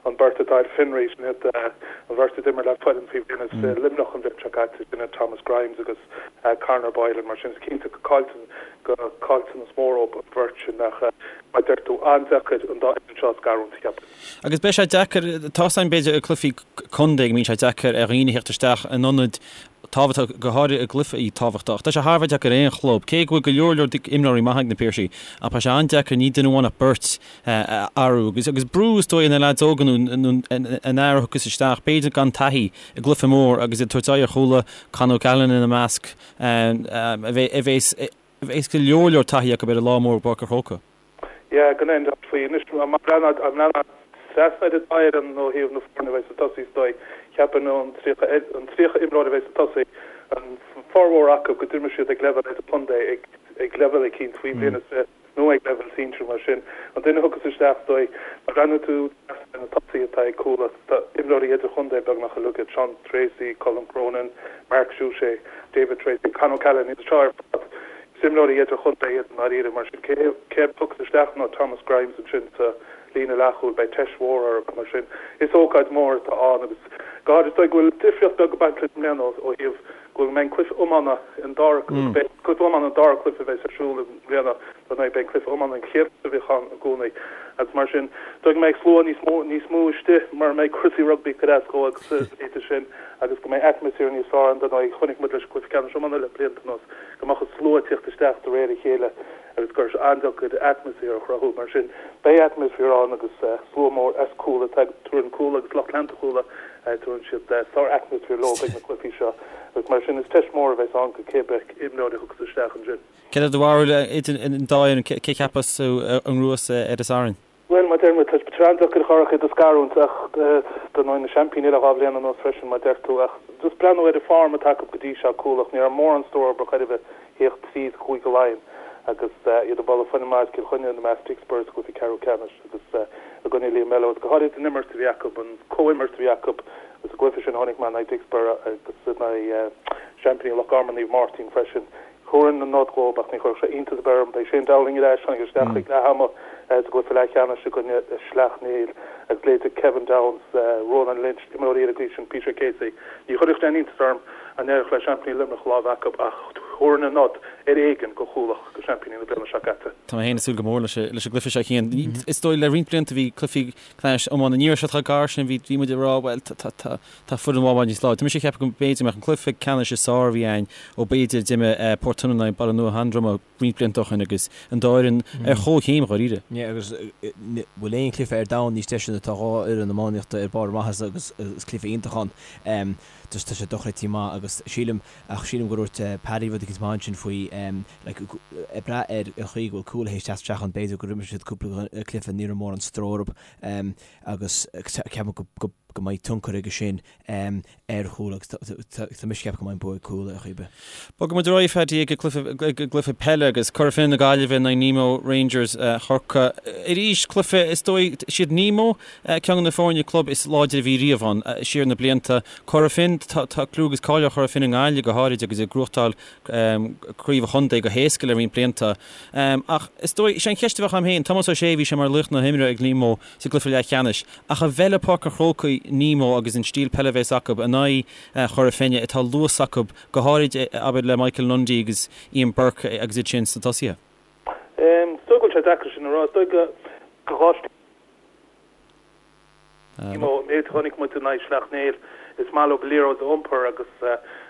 an bheirt atá ar fionraí, sin iad an bheirt a d'imir le foireann faoi bhliain is Luimneach an bhliain seo caite, sin iad Thomas Grimes agus Conor Boylan. Mar sin is cinnte gur caillteanas mór dóibh an bheirt sin ach mar a deir tú, an-deacair an dá fhoireann seo a scarúint, cheapfainn. Agus beidh sé deacair, tá a fhios againn b'fhéidir i gcluichí contae go mbíonn sé deacair ar dhaoine theacht isteach in ionaid tábhachtach, go háirithe i gcluichí tábhachtach. Tá sé thar a bheith deacair ar aon chlub, cé go bhfuil go leor leor imreoirí maithe ag na Piarsaigh, ach beidh sé an-deacair ní duine amháin ach beirt a athrú. Agus agus brú is dóigh ar na leaids óga nó an fhear a thiocfas isteach, b'fhéidir gan taithí i gcluiche mór agus iad ag tabhairt aghaidh ar Chuala, Con O'Callaghan ina measc, a bheas a bheas go leor leor taithí acu ar an lá mór i bPáirc an Chrócaigh. Yeah, gan aon dabht faoi. Anois, má bhreathnaíonn trasna ar an dá fhoireann ó thaobh na foirne a bheidh sa tosaí is dóigh, cheapfainn an 30 an 30 imreoir a bheidh sa tosaí, an formhór acu go d'imir siad ag leibhéal idirchontae, ag ag leibhéal eicínt faoi bhliain is fiche nó ag leibhéal sinsir mar sin. An duine a thiocfas isteach is dóigh, má bhreathnaíonn tú trasna ar na tosaithe atá ag Cuala, tá imreoirí idirchontae beagnach uilig iad, Sean Treacy, Colm Cronin, Mark Suchet, David Treacy, Con O'Callaghan, iad seo ar fad. Is imreoirí idirchontae iad i ndáiríre, mar sin cé a thiocfas isteach nó Thomas Grimes ansin sa líne leathchúil, beidh teist mhór orthu. Mar sin, is ócáid mhór atá ann agus go háirid is dóigh go bhfuil difríocht beag ag baint leis i mbliana ó thaobh go mbeidh an cluiche iomána an dara beidh cluiche iomána an dara cluiche a bheas ar siúl i mbliana dar ndóigh beidh an cluiche iomána an chéad cluiche a bhíodh ann i gcónaí agus mar sin is dóigh go mbeidh slua níos mó níos mó istigh mar a mbeidh cúrsaí rugbaí ag cur as dhó agus a leithéid sin agus go mbeidh atmaisféar níos fearr ann dar ndóigh chonaic muid leis an gcluiche ceannais iomána le blianta anuas go mbeadh an slua ag tíocht isteach de réir a chéile agus go raibh sé an-deacair atmaisféar a chruthú. Mar sin, beidh atmaisféar ann agus slua mór as Cuala, tabharann Cuala agus lucht leanta Chuala, tabharann siad sár-atmaisféar leo ag na cluichí seo agus mar sin is teist mhór a bheas ann go cé bith imreoir a thiocfas isteach ansin. Céard é do bharúil idir an dá fhoireann, cé cheapas tú a ghnóthós ar an Satharn? Bhuel, mar a deir muid, tá sé an-deacair a chur iad a scarúint ach dar ndóigh na seaimpíní le dhá bhliain anuas freisin, mar a deir tú. Ach just breathnú ar an form atá acu go dtí seo, Cuala, ní raibh mórán stró orthu chor ar bith theacht tríd Chúige Laighean agus iad ag bualadh foireann maith as Cill Chainnigh ina measc Dicksboro sa gcluiche ceathrú ceannais agus i gcoinne Liam Mello agus go háirid an imirt a bhí acu, an comhimirt a bhí acu sa gcluiche sin a chonaic mé in aghaidh Dicksboro agus in aghaidh seaimpíní Loch Garman Naomh Máirtín freisin. Thabharfainn an nod dhóibh ach ní chuirfeadh sé iontas ar bith orm. Beidh Shane Dowling ar ais, tháinig isteach ag leath ama sa gcluiche leathcheannais i gcoinne Shleacht Néill agus leithéidí Kevin Downes, Ronan Lynch, imreoirí ar an gcaoi sin, Peter Casey. Ní chuirfeadh aon iontas orm dá n-éireodh le seaimpíní Luimneach lámh acu ach thabharfainn an nod ar éigean go Chuala, go seaimpíní na bliana seo caite. Tá mé féin ag súil go mór leis an gcluiche seo, Cian. Is dóigh le roinnt blianta bhí cluichí ceannais iomána, ní raibh siad chomh gar sin, bhí muid ag rá bhuel tá Tá foireann amháin níos láidre. Tá mise ag ceapadh go mb'fhéidir go mbeadh an cluiche ceannais is fearr a bhí ann ó b'fhéidir d'imir Port Tionainn in aghaidh Baile Nua Sheandroma roinnt blianta ó shin agus an dá fhoireann ar chomhchéim dháiríre. Yeah agus bhfuil aon chluiche ar domhan níos deise ná tá dhá fhoireann iománaíochta ar barr a maitheasa agus is cluiche iontach ann. Just tá sé dochreidte maith agus sílim ach sílim gur dhúirt Paddy rud eicínt maith ansin faoi like ag brath ar an chaoi go bhfuil Cuala théis teacht isteach ann b'fhéidir gur imir siad cúpla cluiche ní raibh mórán stró orthu agus ceapaim go go mbeidh tionchar aige sin ar Chuala agus tá mise ag ceapadh go mbeidh an bua ag Cuala ar chaoi ar bith. Bogfaidh muid ar aghaidh Phaddy ag an gcluiche peile agus Cora Finne na Gaillimhe in aghaidh Nemo Rangers Chorcaí. Arís cluiche is dóigh siad Nemo ceann de na foirne club is láidre a bhí riamh ann siar na blianta. Cora Finne. tá clú agus cáil ar Chora Finne i nGaillimh go háirid agus ag gnóthachtáil craobh an chontae go héasca le roinnt blianta. Ach is dóigh, is é an cheist a bheadh agam féin, Tomás Ó Sé, bhí sé mar laoch na himeartha ag Nemo sa gcluiche leathcheannais, ach an bhfeilfidh Páirc an Chrócaigh Nemo agus an stíl peile a bheas acu in aghaidh Chora Finne atá luas acu, go háirid, abair, le Michael Lundy agus Ian Burke agus iad sin sna tosaithe? Is dóigh go bhfuil sé deacair sin a rá. Is dóigh go dhá stíl. Nemo, an méid a chonaic muid in aghaidh Shleacht Néill, is maith leo an liathróid a iompar agus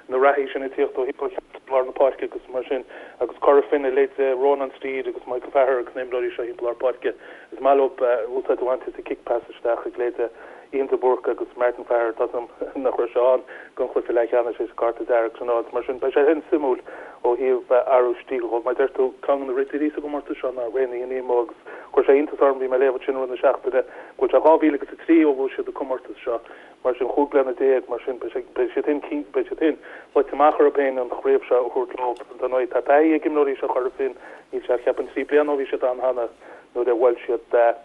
na reathaí sin ag tíocht ó thimpeall chearnóg lár na páirce agus mar sin agus Cora Finne, leithéidí Rónán Steede agus Michael Faher agus na himreoirí seo thimpeall lár páirce, is maith leo úsáid a bhaint as an kick pass isteach ag leithéidí Ian de Búrca agus Martin Faher, tá 's agam nach raibh sé ann don chluiche leathcheannais théis an cárta dearg sin a fháilt. Mar sin, beidh sé sin suimiúil ó thaobh athrú stíl dhó. Mar a deir tú, ceann de na ridirí sa gcomórtas seo ná Raonaithe Nemo agus chuir sé iontas orm, bhí mé ag léamh ansin i rith na seachtaine, go bhfuil sé 2000 agus 3 ó bhuaigh siad an comórtas seo. Mar sin, 15 bliana, mar sin, beidh siad féin, beidh siad féin luite amach orthu féin an chraobh seo a thabhairt leo. Dar ndóigh, tá taithí ag imreoirí seo Chora Finne, níl sé ach cheapfainn 3 bliana ó bhí siad ann cheana nuair a bhuail siad.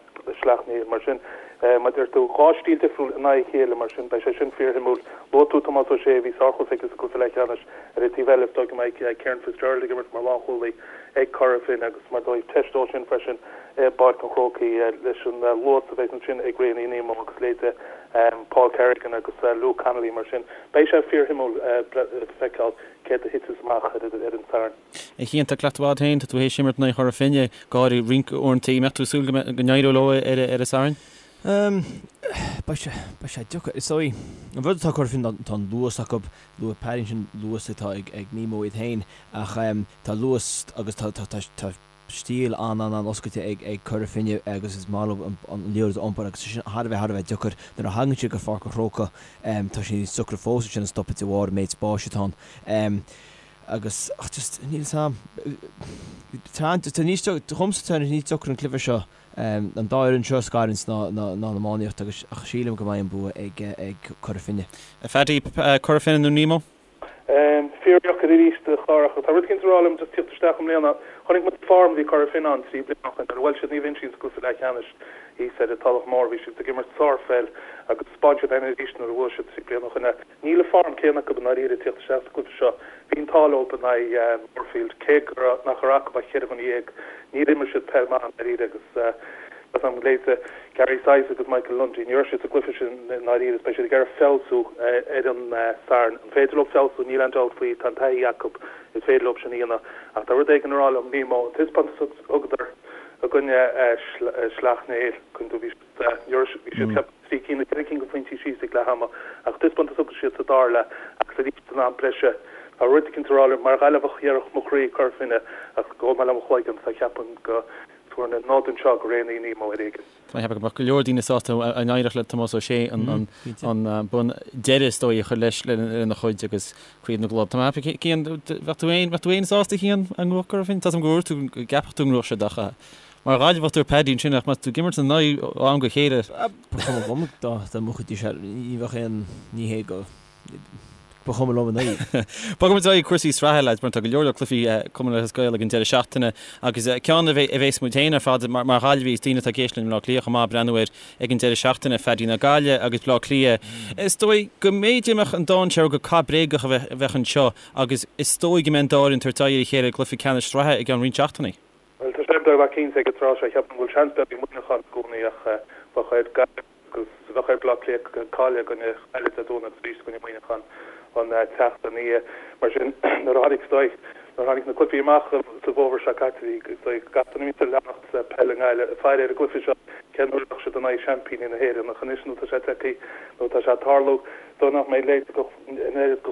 Sleacht Néill. Mar sin, mar a deir tú, dhá stíl difriúil in aghaidh a chéile, mar sin, beidh sé sin fíorshuimiúil. Luaigh tú Tomás Ó Sé, bhí sárchluiche aige sa gcluiche leathcheannais. Ar an taobh eile, is dóigh go mbeidh Kieran Fitzgerald ag imirt mar lánchúlaí ag Cora Finne agus mar dóigh teist dó sin freisin i bPáirc an Chrócaigh leis an luas a bheidh ansin ag Raonaithe Nemo agus leithéidí Paul Kerrigan agus Luke Connolly. Mar sin, beidh sé fíorshuimiúil feiceáil céard a thitfeas amach ar an Satharn. A Chian, tá cleachtadh agat féin, tá tú théis imirt in aghaidh Chora Finne go háirithe roinnt uaireanta. An mbeadh tú ag súil go n-éireodh leo ar an Satharn? Beidh sé, beidh sé deacair. Is dóigh, an rud atá ag Cora Finne ná tá an luas acu, luaigh Paddy ansin luas atá ag Nemo iad féin ach tá luas agus tá, tá, tá, tá stíl an-an-an-oscailte ag ag Cora Finne agus is maith leo an liathróid a iompar agus tá sin thar a bheith thar a bheith deacair nuair a thagann siad go Pháirc an Chrócaigh. Tá sé níos deacra fós ansin a stopadh de bharr an méid spáis atá ann. Agus, ach just, níl 'fhios a'm. Tá, tá níos, dhomsa tá níos deacra an cluiche seo, an dá fhoireann seo a scarúint ná, ná, ná an iománaíocht agus, ach sílim go mbeidh an bua ag, ag Cora Finne. A Phaddy, Cora Finne nó Nemo? Fíordheacair arís a Chárthach. Tá rud éicint ag rá liom just tíocht isteach i mbliana. Chonaic muid form a bhí Cora Finne ann 3 bliana ó shin nuair a bhuail siad Naomh Uinseann sa gcluiche leathcheannais thíos ar an Tulach Mhór. Bhí siad ag imirt sárpheil agus 'spáin siad é arís nuair a bhuaigh siad 3 bliana ó shin. Níl an form céanna acu i ndáiríre ag tíocht isteach sa gcluiche seo. Bhí an t-ádh leo in aghaidh Moorefield, cé go raibh, nach raibh acu ach cheithre dhuine dhéag, níor imir siad peil maith i ndáiríre agus tá 's a'm, leithéidí Gary Sice agus Michael Lundy, ní raibh siad sa gcluiche sin i ndáiríre is beidh siad ag iarraidh feabhsú ar an Satharn. An féidir leo feabhsú? Níl aon dabht faoi, tá an taithí acu, is féidir leo sin a dhéanamh ach tá rud éigin ag rá liom, Nemo, an taispeántas a thugadar i gcoinne Shleacht Néill, bhí Bhí siad cheapfainn 3 cinn nó 4 cinn de phointí síos ag leath ama ach taispeántas a thug siad sa dara leath agus arís san am breise. Tá rud eicínt ag rá liom, mar Ghaillimheach dhéarfadh mo chroí Cora Finne ach gabhfaidh mé le mo chloigeann so cheapfainn go dtabharfainn an nod anseo go Raonaithe Nemo ar éigean. Tá mé ag ceapadh go mbeadh go leor daoine sásta dá n-éireodh le Tomás Ó Sé an bonn deiridh is dóigh a chur leis lena chuid agus Craobh na gClub. Tá mé ag ceapadh Cian, bheadh tú féin, bheadh tú féin sásta Cian dá ngnóthódh Cora Finne? Tá 's agam gur dhúirt tú go gceapfadh tú go ngnóthódh siad ach Mar Ghaillimheach dúirt Paddy ansin ach má tá tú ag imirt ina n-aghaidh ó am go chéile. Ba chuma liom dá mbuafaidís é, ní bheadh aon ní hé go ba chuma liom ina aghaidh. Bogfaidh muid ar aghaidh cúrsaí sraithe lads mar tá go leor leor cluichí Cumann Lúthchleas Gael ag an deireadh seachtaine agus ceann a bheas muid féin ar fad mar Ghaillimhigh is daoine atá ag éisteacht linn i mBleá Cliath chomh maith ag breathnú air ag an deireadh seachtaine, Phaddy ná Gaillimh agus Bleá Cliath. Is dóigh go mb'fhéidir go mbeadh an dainséar go cath bréagach a bheadh anseo agus is dóigh go mbeidh an dá fhoireann ag tabhairt aghaidh ar a chéile i gcluiche ceannais sraithe i gceann roinnt seachtainí. Bhuel, tá sé beagnach cinnte ag an tráth seo. Cheapfainn go bhfuil seans beag ag Muineachán i gcónaí ach bheadh ar Gaillimh agus bheadh ar Bhleá Cliath cailleadh i gcoinne Ghaillimh Dé Domhnaigh agus arís i gcoinne Muineachán an tseachtain ina dhiaidh. Mar sin, nuair a tháinig, is dóigh, nuair a tháinig na cluichí amach sa bhfómhar seo caite, bhí, is dóigh, gach duine a bhíonns ag leanacht peil i nGaillimh ag faire ar an gcluiche seo, cén uair a bheadh siad in aghaidh seaimpíní na hÉireann. Ach anois nuair atá sé tagtha, nuair atá sé ag tarlú, is dóigh nach mbeidh a leithéid an oiread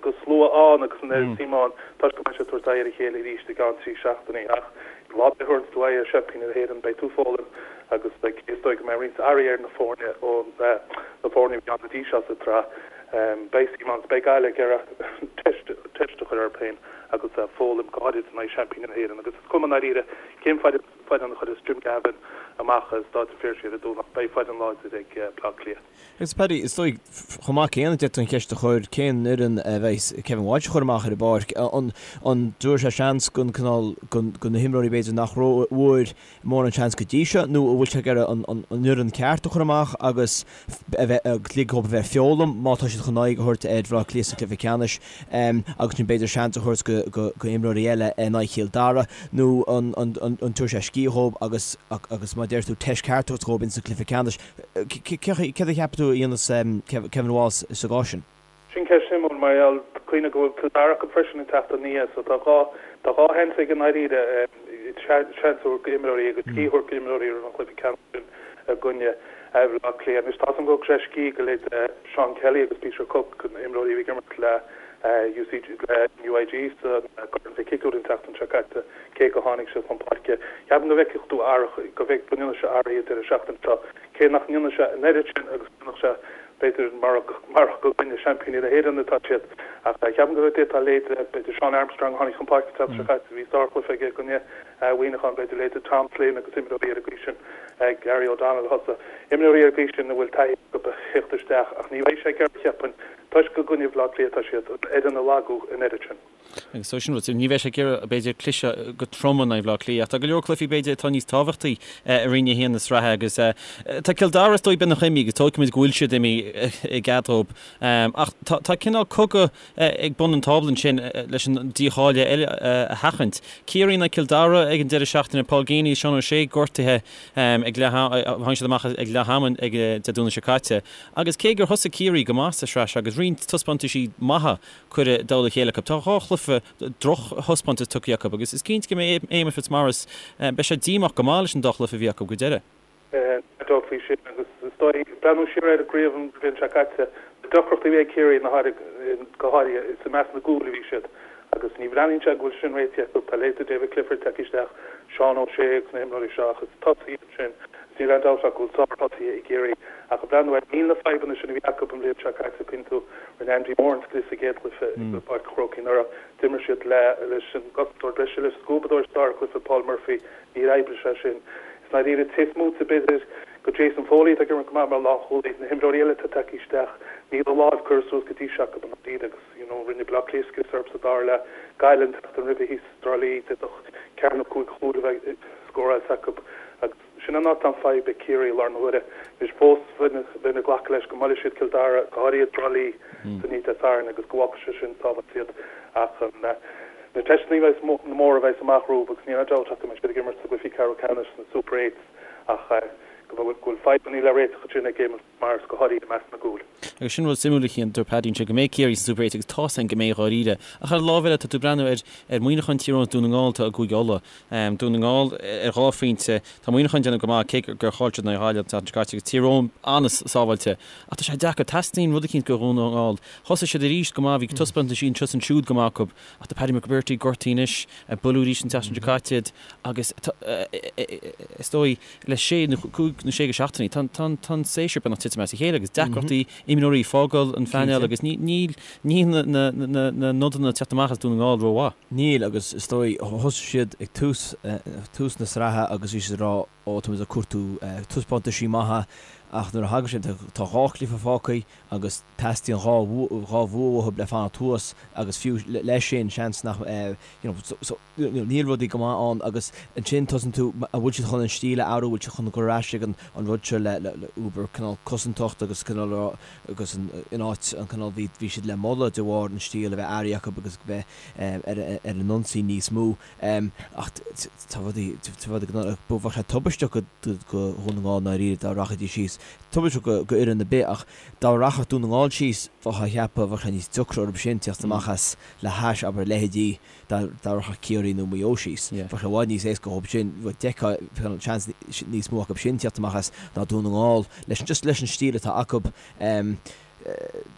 de shlua ann agus an oiread suim ann toisc go mbeidh siad ag tabhairt aghaidh ar a chéile arís i gceann 3 seachtainí. Ach lá ar bith a thabharanns tú aghaidh ar seaimpíní na hÉireann beidh tú ag foghlaim agus beidh, is dóigh go mbeidh roinnt athruithe ar na foirne ó na foirne a bhí ann go dtí seo sa tsraith. Beidh suim ann is beidh Gaillimh ag iarraidh teist a chur orthu féin. Agus foghlaim, go háirid in aghaidh seaimpíní na hÉireann. Agus is cuma i ndáiríre cén foireann a chuirfeas Jim Gavin amach i Stáid an Phiarsaigh ar an Domhnach, beidh foireann láidir ag Bleá Cliath. Agus Paddy, is dóigh, chomh maith céanna d'fhéadfaí an cheist a chur, cén fhoireann a bheidh Kevin Walsh a chur amach ar an bpáirc? An dtabharfaidh sé seans don cineál, do na himreoirí b'fhéidir nach bhfuair mórán seans go dtí seo nó an bhfuil sé ag iarraidh an fhoireann ceart a chur amach agus a bheith, ag ligean dóibh a bheith ag foghlaim má tá siad chun aghaidh a thabhairt ar Bhaile Átha Cliath sa chluiche ceannais agus ansin b'fhéidir seans a thabhairt go imreoirí eile in aghaidh Chill Dara nó an dtabharfaidh sé scíth dhóibh agus agus mar a deir tú teist ceart a thabhairt dhóibh insa chluiche ceannais. Céard a cheapann tú a dhéanfas Kevin Walsh sa gcás sin? Sin ceist shuimiúil mar gheall, cuimhnigh go bhfuil Cill Dara acu freisin an tseachtain ina dhiaidh so tá tá dhá sheans aige i ndáiríre seans a thabhairt go imreoirí agus scíth a thabhairt go imreoirí roimh an chluiche ceannais sin i gcoinne Bhaile Átha Cliath. Anois tá a fhios agam go dtug sé scíth go leithéid Seán Kelly agus Peter Cooke, na imreoirí a bhí ag imirt le UCG le NUIG sa gCorn Mhic Shigiúir an tseachtain seo caite, cé go tháinig siad chun páirce. Ceapaim go bhfeicfidh tú athruithe, go bhfeic go ndéanfaidh sé athruithe an deireadh seachtaine seo, cé nach ndéanfaidh sé an oiread sin agus a dhéanfadh sé b'fhéidir marach gur i gcoinne seaimpíní na hÉireann atá siad. Ach ceapaim go d'fhéadfá leithéid, b'fhéidir Sean Armstrong a tháinig chun páirce an tseachtain seo caite, bhí sárchluiche aige i gcoinne Mhuineacháin, b'fhéidir leithéid Tom Flynn agus imreoirí ar an gcaoi sin, Gary O'Donnell a thosaigh, imreoirí ar an gcaoi sin a bhfuil taithí acu a theacht isteach ach ní bheidh sé ag iarraidh, cheapfainn, toisc gur i gcoinne Bhaile Átha Cliath atá siad, an fhoireann a lagú an oiread sin. Agus so sin rud, ní bheidh sé ag iarraidh, b'fhéidir, cliseadh go trom in aghaidh Bhaile Átha Cliath ach tá go leor cluichí, b'fhéidir, atá níos tábhachtaí i Roinn 1 na sraithe agus tá Cill Dara is dóigh beagnach imithe agus tógfaimid go bhfuil siad imithe i gcead dóibh. Ach tá cineál cogadh ag bun an tábla ansin leis an dícháiliú eile a sheachaint. Ciarraí in aghaidh Cill Dara ag an deireadh seachtaine, Paul Geaney is Seán O'Shea gortaithe ag leath tháinig siad amach ag leath ama ag Dé Domhnaigh seo caite. Agus cé gur thosaigh Ciarraí go maith sa sraith seo agus roinnt taispeántaisí maithe curtha i dtoll a chéile acu, tá dhá chluiche drochthaispeántas tugtha acu agus is cinnte go mbeidh Éamonn Fitzmaurice, beidh sé díomách go maith leis an dá chluiche a bhí acu go deireadh. Níl dabht faoi sin agus is dóigh, breathnú siar ar an gcraobh an bhliain seo caite, na deacrachtaí a bhí ag Ciarraí na go háirithe, is i measc na gcúl a bhí siad agus ní bhreathnaíonn sé go bhfuil sin réitithe acu. Tá leithéidí David Clifford tagtha isteach, Seán O'Shea agus na himreoirí seo ach is tosaithe iad sin agus níl aon dabht ach go bhfuil sárthosaithe i gCiarraí ach ag breathnú air, níl na fadhbanna sin a bhí acu an bhliain seo caite, cuimhnigh tú, rinne Andy Moran scrios sa gcéad chluiche i bPáirc an Chrócaigh anuraidh, d'imir siad le leis an gcosantóir breise, leis an scuabadóir sa dara cluiche, Paul Murphy, Níor oibrigh sé sin. I ndáiríre taobh amuigh de b'fhéidir go Jason Foley atá ag imirt go maith mar lánchúlaí, na himreoirí eile atá tagtha isteach, níl a láimh curtha suas go dtí seo acu i ndáiríre agus you know rinne Baile Átha Cliath scrios orthu sa dara leath. Gaillimh an tseachtain roimhe thíos i dTrá Lí, d'fhéadfadh ceathair nó chúig chúl a bheith scóráilte acu agus sin an áit atá an fadhb ag Ciarraí i láthair na huaire. Anois fós bheinn ag glacadh leis go mbuailfidh siad Cill Dara, go háirithe i dTrá Lí san oíche Dé Sathairn agus go bhfágfaidh sé sin sábháilte iad ach an Na teisteanna móra a bheas amach rompu agus níl aon dabht ach go mbeidh siad ag imirt sa gcluichí ceathrú ceannais sna Super Eights ach go bhfuil fadhbanna le réiteach ansin ag Éamonn Fitzmaurice, go háirithe i measc na gcúl. Agus sin rud suimiúil a Chian, dúirt Paddy ansin go mbeidh Ciarraí sna Super Eights agus tá's againn go mbeidh dháiríre. Ach ar an lámh eile tá tú ag breathnú ar ar Muineachán, Tír Eoghain is Dún na nGall atá i gCúige Uladh. Dún na nGall ar dhá phointe, tá Muineachán ag déanamh go maith cé gur chaill siad in aghaidh Ghaillimh an tseachtain seo caite agus Tír Eoghain an-sábháilte. Ach tá sé deacair, teastaíonn rud eicínt go Dhún na nGall. Thosaigh siad arís go maith, bhí taispeántaisí anseo is ansiúd go maith acu. Ach tá Paddy McBrearty gortaithe anois, buaileadh arís an tseachtain seo caite iad agus is dóigh le sé nó cúig nó sé go seachtainí tá an séasúr beagnach titim as a chéile agus deacrachtaí imreoirí ag fágáil an phainéil agus níl na nodanna ag teacht amach as Dún na nGall rómhaith. Níl agus is dóigh thosaigh siad ag tús tús na sraithe agus bhí siad ag rá ó tá muid ag cuartú taispeántaisí maithe ach nuair a thagann sé tá dhá chluiche fágtha agus teastaíonn dhá bhua uathu le fanacht thuas agus fiú leis sin seans nach you know so you know níl rudaí go maith ann agus ansin tosaíonn tú an bhfuil siad chun an stíl a athrú, bhfuil siad chun cur ar ais ag an an rud seo le le uber cineál cosantacht agus cineál agus an in áit an cineál bhí bhí siad le moladh de bharr an stíl a bheith athraithe acu agus bheith ar ar an ionsaí níos mó ach tá rudaí tá rudaí go bheadh sé tubaisteach go go Dhún na nGall i ndáiríre dá rachaidís síos. Tubaisteach go fhoireann ar bith ach dá rachadh Dún na nGall síos bheifeá ag ceapadh bheadh sé níos deacra orthu sin teacht amach as le hais abair leithéidí dá rachadh Ciarraí nó Maigh Eo síos. Bheadh sé i bhfad níos éasca dhóibh sin, d'fheicfeá seans níos mó acu sin teacht amach as ná Dún na nGall leis just leis an stíl atá acu.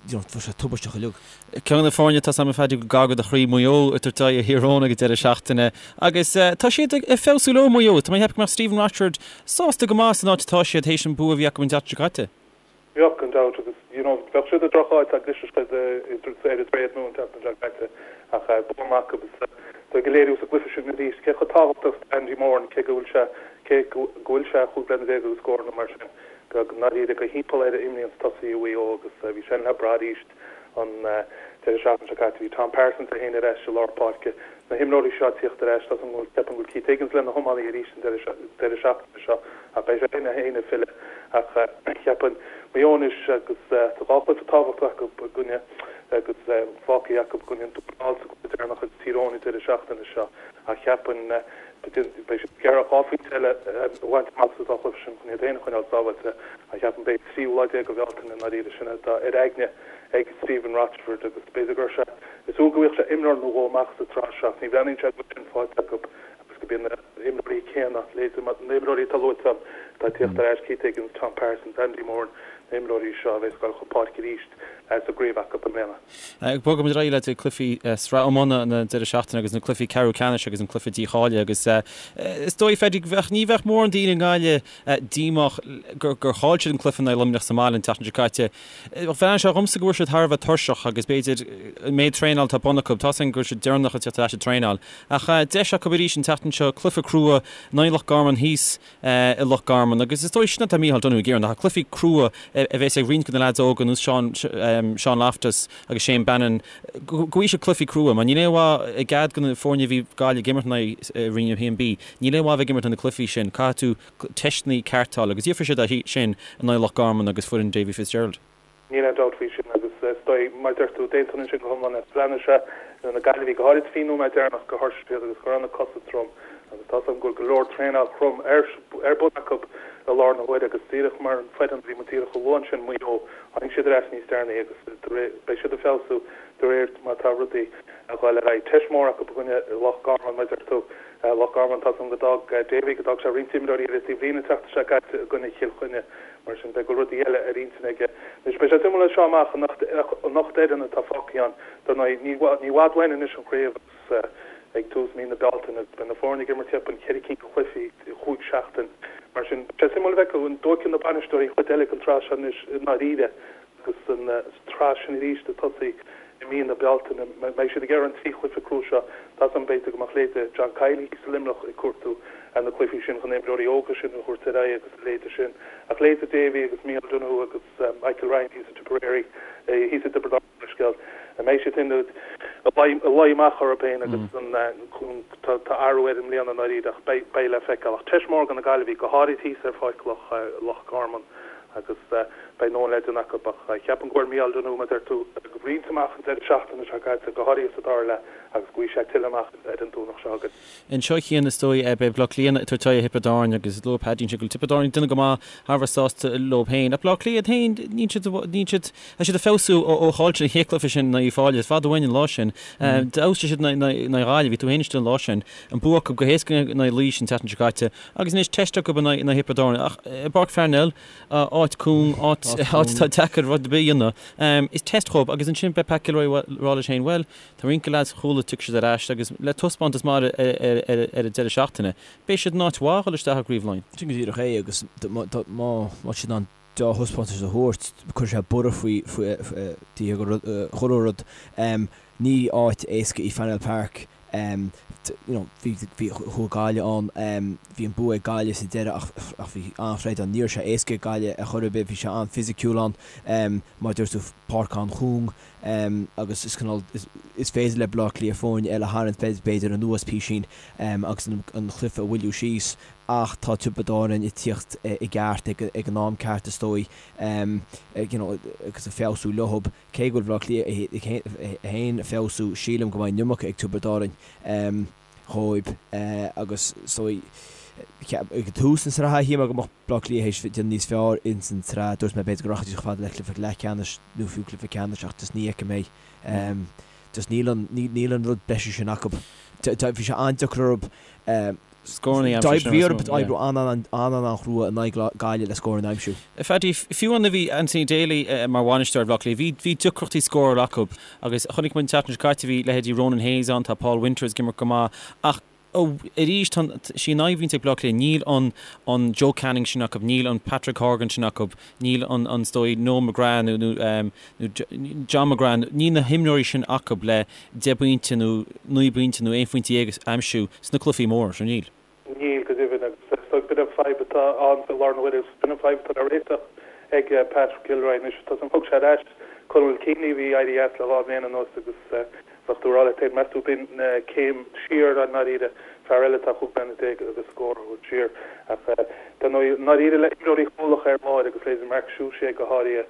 You know, bheadh sé tubaisteach uilig. Ceann de na foirne atá agam a Phaddy gar do do chroí, Maigh Eo, ag tabhairt aghaidh ar Thír Eoghain ag an deireadh seachtaine agus tá siad ag feabhsú leo, Maigh Eo. Tá mé ag ceapadh go mbeadh Stephen Rochford sásta go maith san áit atá siad théis an bua a bhí acu an tseachtain seo caite. Bheadh, gan dabht, agus you know bheadh siad i droch-áit dá gclisfeadh siad ar an dTréad Nua an tseachtain seo caite ach bua maith acu agus tá ag léiriú sa gcluiche sin arís cé chomh tábhachtach is atá Andy Moran cé go bhfuil sé cé go bhfuil sé chúig bliana déag agus scór nó mar sin go ndáiríre go thimpeall air a imríonn tosaithe Mhaigh Eo agus bhí sé le brath arís an deireadh seachtaine seo caite. Bhí Tom Parsons é féin ar ais i lár páirce. Na himreoirí seo ag tíocht ar ais, tá súil agam, ceapaim go bhfuil Keith Higgins le na hiománaí arís an deireadh seachtaine seo ach beidh sé féin ag filleadh. Ach cheapfainn Maigh Eo anois agus tá dhá chluiche tábhachtach acu i gcoinne agus fágtha acu i gcoinne an Dúin thall sa gcluiche deireanach agus Tír Eoghain an deireadh seachtaine seo ach cheapfainn beidh siad ag iarraidh dhá phointe eile a bhaint amach sa dá chluiche sin chun iad féin a choinneáil sábháilte ach cheapfainn beidh an tríú lá déag de Bhealtaine i ndáiríre sin atá ar aigne ag Stephen Rochford agus b'fhéidir go raibh sé ag súil go bhfaigheadh sé imreoir nó dhó amach sa tsraith seo ach ní bhreathnaíonn sé go bhfuil sin faighte acu agus go mbíonn na himreoirí céanna, leithéidí na himreoirí atá luaite agam atá ag tíocht ar ais, Keith Higgins, Tom Parsons, Andy Moran, na himreoirí seo a bheas ag dul chun páirce arís sa gcraobh acu i mbliana. Bogfaimid ar aghaidh leis na cluichí sraith iomána an deireadh seachtaine agus na cluichí ceathrú ceannais agus an cluiche dícháilithe agus is dóigh, Phaddy, bheadh, ní bheadh mórán daoine i nGaillimh díomách gur chaill siad an cluiche in aghaidh Luimneach sa mbaile an tseachtain seo caite. Bhreathnaigh sé dhomsa go bhfuil siad thar a bheith tuirseach agus b'fhéidir an méid traenáil atá bun acu, tá's againn go bhfuil siad deireanach ag teacht ar ais ag traenáil. Ach deis acu arís an tseachtain seo, cluiche crua in aghaidh Loch Garman thíos i Loch Garman agus is dóigh sin atá Micheál Donoghue ag iarraidh, ná cluichí crua a bheas ag roinnt de na leaids óga ar nós Seán, Seán Loftus agus Shane Bannon, go bhfaighidh siad cluichí crua mar níl aon mhaith i gcead de na foirne a bhí Gaillimh ag imirt in aghaidh i Roinn 1B, níl aon mhaith a bheith ag imirt na cluichí sin, caithfidh tú teisteanna cearta a fháil agus gheobhaidh siad é sin in aghaidh Loch Garman agus foireann Davy Fitzgerald. Níl aon dabht faoi sin agus is dóigh, mar a deir tú, d'aontóinn ansin go hiomlán leat. Bhreathnaigh sé ar na Gaillimhigh, go háirid faoin nóiméad deireanach, gur thuirsigh siad agus go raibh na cosa trom agus tá's agam go bhfuil go leor traenáil throm ar ar bun acu i láthair na huaire agus díreach mar an foireann a bhí muid díreach a lua ansin, Maigh Eo, tháinig siad ar ais níos deireanaí agus beidh siad ag feabhsú de réir mar atá rudaí ag dul ar aghaidh. Teist mhór acu i gcoinne Loch Garman, mar a deir tú. Loch Garman, tá's agam go d'fhág Davy, go d'fhág sé roinnt imreoirí ar an taobhlíne an tseachtain seo caite i gcoinne Chill Chainnigh. Mar sin, beidh go bhfuil rudaí eile ar intinn aige. Anois, beidh sé suimiúil as seo amach an ocht fhoireann atá fágtha ann. Dar ndóigh, ní i bhfad uainn anois an chraobh agus ag tús mí na Bealtaine agus beidh na foirne ag imirt cheapfainn ceithre cinn de chluichí i chúig seachtain. Mar sin, beidh sé suimiúil a fheiceáil an dtógfaidh na bainisteoirí an chuid eile den tsraith seo anois i ndáiríre. Agus an tsraith sin arís ag tosaí i mí na Bealtaine, mbeidh siad ag iarraidh an trí chluiche crua seo, tá 's agam b'fhéidir go mbeadh leithéide John Kiely thíos i Luimneach ag cuartú na cluichí sin chun na himreoirí óga sin a thabhairt ar aghaidh agus a leithéide sin. Ach leithéide Davy agus Micheál Donoghue agus Michael Ryan thíos i Tipperary, thíos i dTiobraid Árann leithscéal, an mbeidh siad féin ag luí amach orthu féin agus tá athrú air i mbliana i ndáiríre ach beidh le feiceáil. Ach teist mhór do na Gaillimhigh, go háirid thíos ar pháirc Loch Garman. agus beidh a ndóthain le déanamh acu ach ceapaim go bhfuair Micheál Donoghue, mar a deir tú, roinnt amach an deireadh seachtaine seo caite, go háirithe sa dara leath agus go bhfaighidh sé tuilleadh amach ar an Domhnach seo chugainn. Anseo a Chian, is dóigh, beidh Bleá Cliath ag tabhairt aghaidh ar Thiobraid Árann agus luaigh Paddy ansin go bhfuil Tiobraid Árann ag déanamh go maith, thar a bheith sásta leo féin. Ach Bleá Cliath iad féin, níl siad, níl siad, tá siad ag feabhsú ó chaill siad an chéad chluiche sin in aghaidh Uíbh Fhailí, is fada uainn an lá sin. D'fheabhsaigh siad in aghaidh Ghaillimh, bhí tú féin istigh an lá sin. An bua acu go héasca in aghaidh Laois an tseachtain seo caite. Agus anois teist acu in aghaidh Thiobraid Árann. Ach i bPáirc Pharnell, áit cúng, áit atá deacair rud ar bith a dhéanamh, is teist dhóibh. Agus ansin beidh Pat Gilroy ag rá leis féin, bhuel, tá roinnt de leaids Chuala, tiocfaidh siad ar ais agus le taispeántas maith ar an deireadh seachtaine, beidh siad in áit mhaith a dhul isteach i gCraobh Laighean. Sin go díreach é agus má tá siad in ann dea-thaispeántas a thabhairt, cuirfidh sé borradh faoi chuile rud. Ní áit éasca í Parnell Park. You know, bhí, bhí, chuaigh Gaillimh ann, bhí an bua ag Gaillimh sa deireadh ach, ach bhí an-throid ann. Ní raibh sé éasca ag Gaillimh ar chor ar bith, bhí sé an-fhisiciúil ann, mar a dúirt tú, páirc an-chúng agus is cineál, is, is féidir le Baile Átha Cliath foirne eile a tharraingt b'fhéidir anuas písín agus an, an cluiche a mhoilliú síos ach tá Tiobraid Árann ag tíocht i gceart ag, ag an am ceart is dóigh, you know, agus ag feabhsú leothab. Cé go bhfuil Baile Átha Cliath féin ag feabhsú, sílim go mbeidh an iomarca ag Tiobraid Árann dhóibh agus is dóigh ag tús na sraithe shíl mé go mbeadh Baile Átha Cliath théis déanamh níos fearr ins an tsraith. Dúirt mé b'fhéidir go rachaidís chomh fada le cluiche leathcheannais nó fiú cluiche ceannais ach just ní fheicim é. Just níl an, níl an rud breise sin acu. Bhí sé an-deacair orthu Scóranna a aimsiú. Bhí orthu oibriú an-an-an-chrua in aghaidh Gaillimh le scóranna a aimsiú. Phaddy, fiú nuair a bhí Anthony Daly mar bhainisteoir ar Bhaile Átha Cliath, bhí bhí deacrachtaí scórála acu agus chonaic muid an tseachtain seo caite, bhí leithéidí Ronan Hayes ann, tá Paul Winters ag imirt go maith ach. Arís, tá sí an fhadhb a bhíonns ag Bleá Cliath, níl an an Joe Canning sin acu, níl an Patrick Horgan sin acu, níl an an is dóigh Noel McGrath nó nó nó John McGrath, níl na himreoirí sin acu le 10 bpointe nó 9 bpointe nó 11 phointe a aimsiú sna cluichí móra seo, níl. Níl, go deimhin, agus is dóigh b'in an fadhb atá ann faoi láthair na huaire agus b'in an fadhb atá le réiteach ag Patrick Gilroy anois. Tá san, thug sé ar ais Conal Keaney a bhí éirithe as le dhá bhliain anuas agus bheadh tú ag rá leat féin, meas tú b'in céim siar i ndáiríre, fear eile atá 15 bliana agus scór a thabhairt siar. Ach dar ndóigh, i ndáiríre le imreoirí cúlacha ar lár agus leithéidí Mark Suciu go háirithe,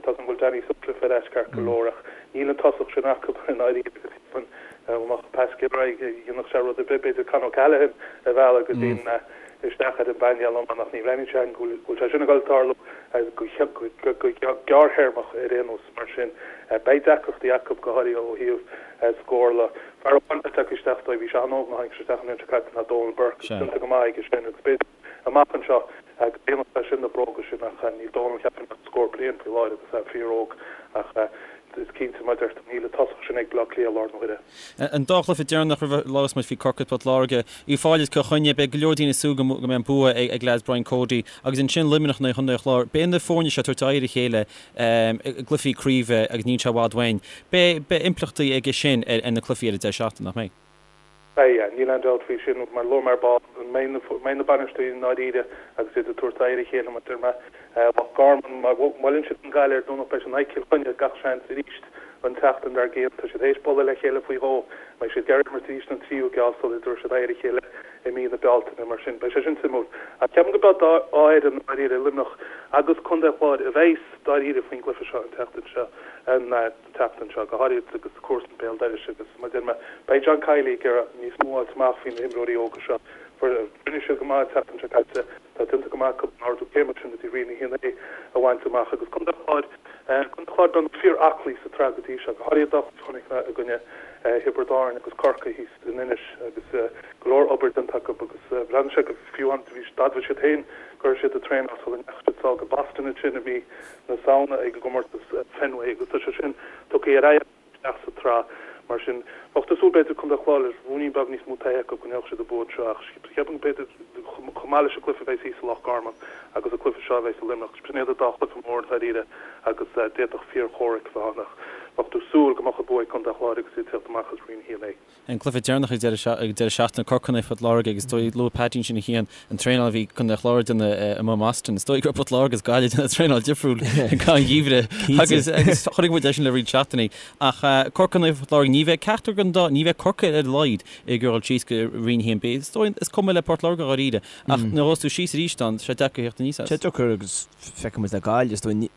Tá 's agam go bhfuil Danny Sutcliffe ar ais ceart go leor ach níl an tosach sin acu i ndáiríre agus cheapfainn dá mbeadh Pat Gilroy dhéanfadh sé rud ar bith, b'fhéidir Con O'Callaghan a mhealladh go dtí an isteach ar an bpainéal iomána ach ní bhreathnaíonn sé go bhfuil sé sin ag dul tarlú go gearrthéarmach ar aon nós mar sin beidh deacrachtaí acu go háirithe ó thaobh scórála. Fear amháin atá tagtha isteach dóibh, bhí sé an-óg nuair a tháinig sé isteach an bhliain seo caite ná Donal Burke agus déanta go maith aige sin agus b'fhéidir amach anseo go ndéanfadh sé sin na bróga sin ach níl Dónal cheapfainn ach scór bliain faoi láthair agus é fíor-óg ach is cinnte mar a deir tú níl an tosach sin ag Baile Átha Cliath i láthair na huaire. An dá chluiche deireanach roimh a labhras muid faoi Corcaigh Port Láirge, Uíbh Fhailí is Cill Chainnigh, beidh go leor daoine ag súil go mbeidh an bua ag leaids Brian Cody agus ansin Luimneach in aghaidh Chontae an Chláir. Beidh na foirne seo ag tabhairt aghaidh ar a chéile i gcluichí craoibhe agus níl sé i bhfad uainn. Beidh impleachtaí aige sin ar na cluichí ar an deireadh seachtaine, nach mbeidh? Beidh, níl aon dabht faoi sin. Mar a luaigh mé ar ball, an mbeidh na bainisteoirí i ndáiríre agus iad ag tabhairt aghaidh ar a chéile, mar a deir mé, Loch Garman, má bhuaileann siad an Ghaillimh ar Domhnach beidh siad in aghaidh Cill Chainnigh gach seans arís an tseachtain dár gcionn. Tá siad théis bualadh le chéile faoi dhó. Beidh siad ag iarraidh imirt arís an tríú geábh sula dtabharfaidh siad aghaidh ar a chéile i mí na Bealtaine. Mar sin, beidh sé sin suimiúil. Ach ceapaim go mbeidh dá fhoireann i ndáiríre, Luimneach agus Contae an Chláir, a bheas dáiríre faoin gcluiche seo an tseachtain seo. tseachtain seo, go háirithe agus comharsana béal dorais agus mar a deir mé, beidh John Kiely ag iarraidh níos mó a fháilt amach faoi na himreoirí óga seo. Rinne siad go maith an tseachtain seo caite, tá déanta go maith acu an ardú céime sin go dtí Roinn 1A a bhaint amach agus Contae an Chláir, Contae an Chláir beagnach fíor-aclaí sa tsraith go dtí seo, go háirithe dá chuid chonaic mé i gcoinne Thiobraid Árann agus Corcaigh thíos in Inis agus go leor obair déanta acu agus bhreathnaigh sé go fiú d'admhaigh siad féin go raibh siad ag traenáil sula ndeachaigh siad sall go Boston ansin i mí na Samhna ag an gcomórtas Fenway agus tá sé sin tugtha ar aghaidh isteach sa tsraith. Mar sin, bheadh tú ag súil b'fhéidir Contae an Chláir le ruainnín beag níos mó taithí acu go ngeobhadh siad an bua anseo ach cheapfainn b'fhéidir chomh maith leis an gcluiche a bheas thíos i Loch Garman agus an cluiche seo a bheas i Luimneach, sin iad an dá chluiche mór dáiríre agus d'fhéadfadh fíor-chomhrac a bheith ann ach bheadh tú ag súil go mbeadh an bua ag Contae an Chláir agus iad ag teacht amach as Roinn 1A. An cluiche deireanach ag deireadh seachtaine, Corcaigh in aghaidh Phort Láirge agus is dóigh, luaigh Paddy ansin a Chian, an traenáil a bhí Contae an Chláir ag déanamh amuigh in Boston. Is dóigh go raibh Port Láirge agus Gaillimh ag déanamh traenáil difriúil i gcaitheamh an gheimhridh agus agus chonaic muid é sin le roinnt seachtainí. Ach Corcaigh in aghaidh Phort Láirge, ní bheidh ceachtar den dá, ní bheidh Corcaigh ar a laghad ag iarraidh dul síos go Roinn 1B. Is dóigh, is cuma le Port Láirge dháiríre ach nuair a ghabhfas tú síos arís ann, tá sé deacair a theacht aníos as. Sé deacair agus feicfidh muid le Gaillimh, is dóigh,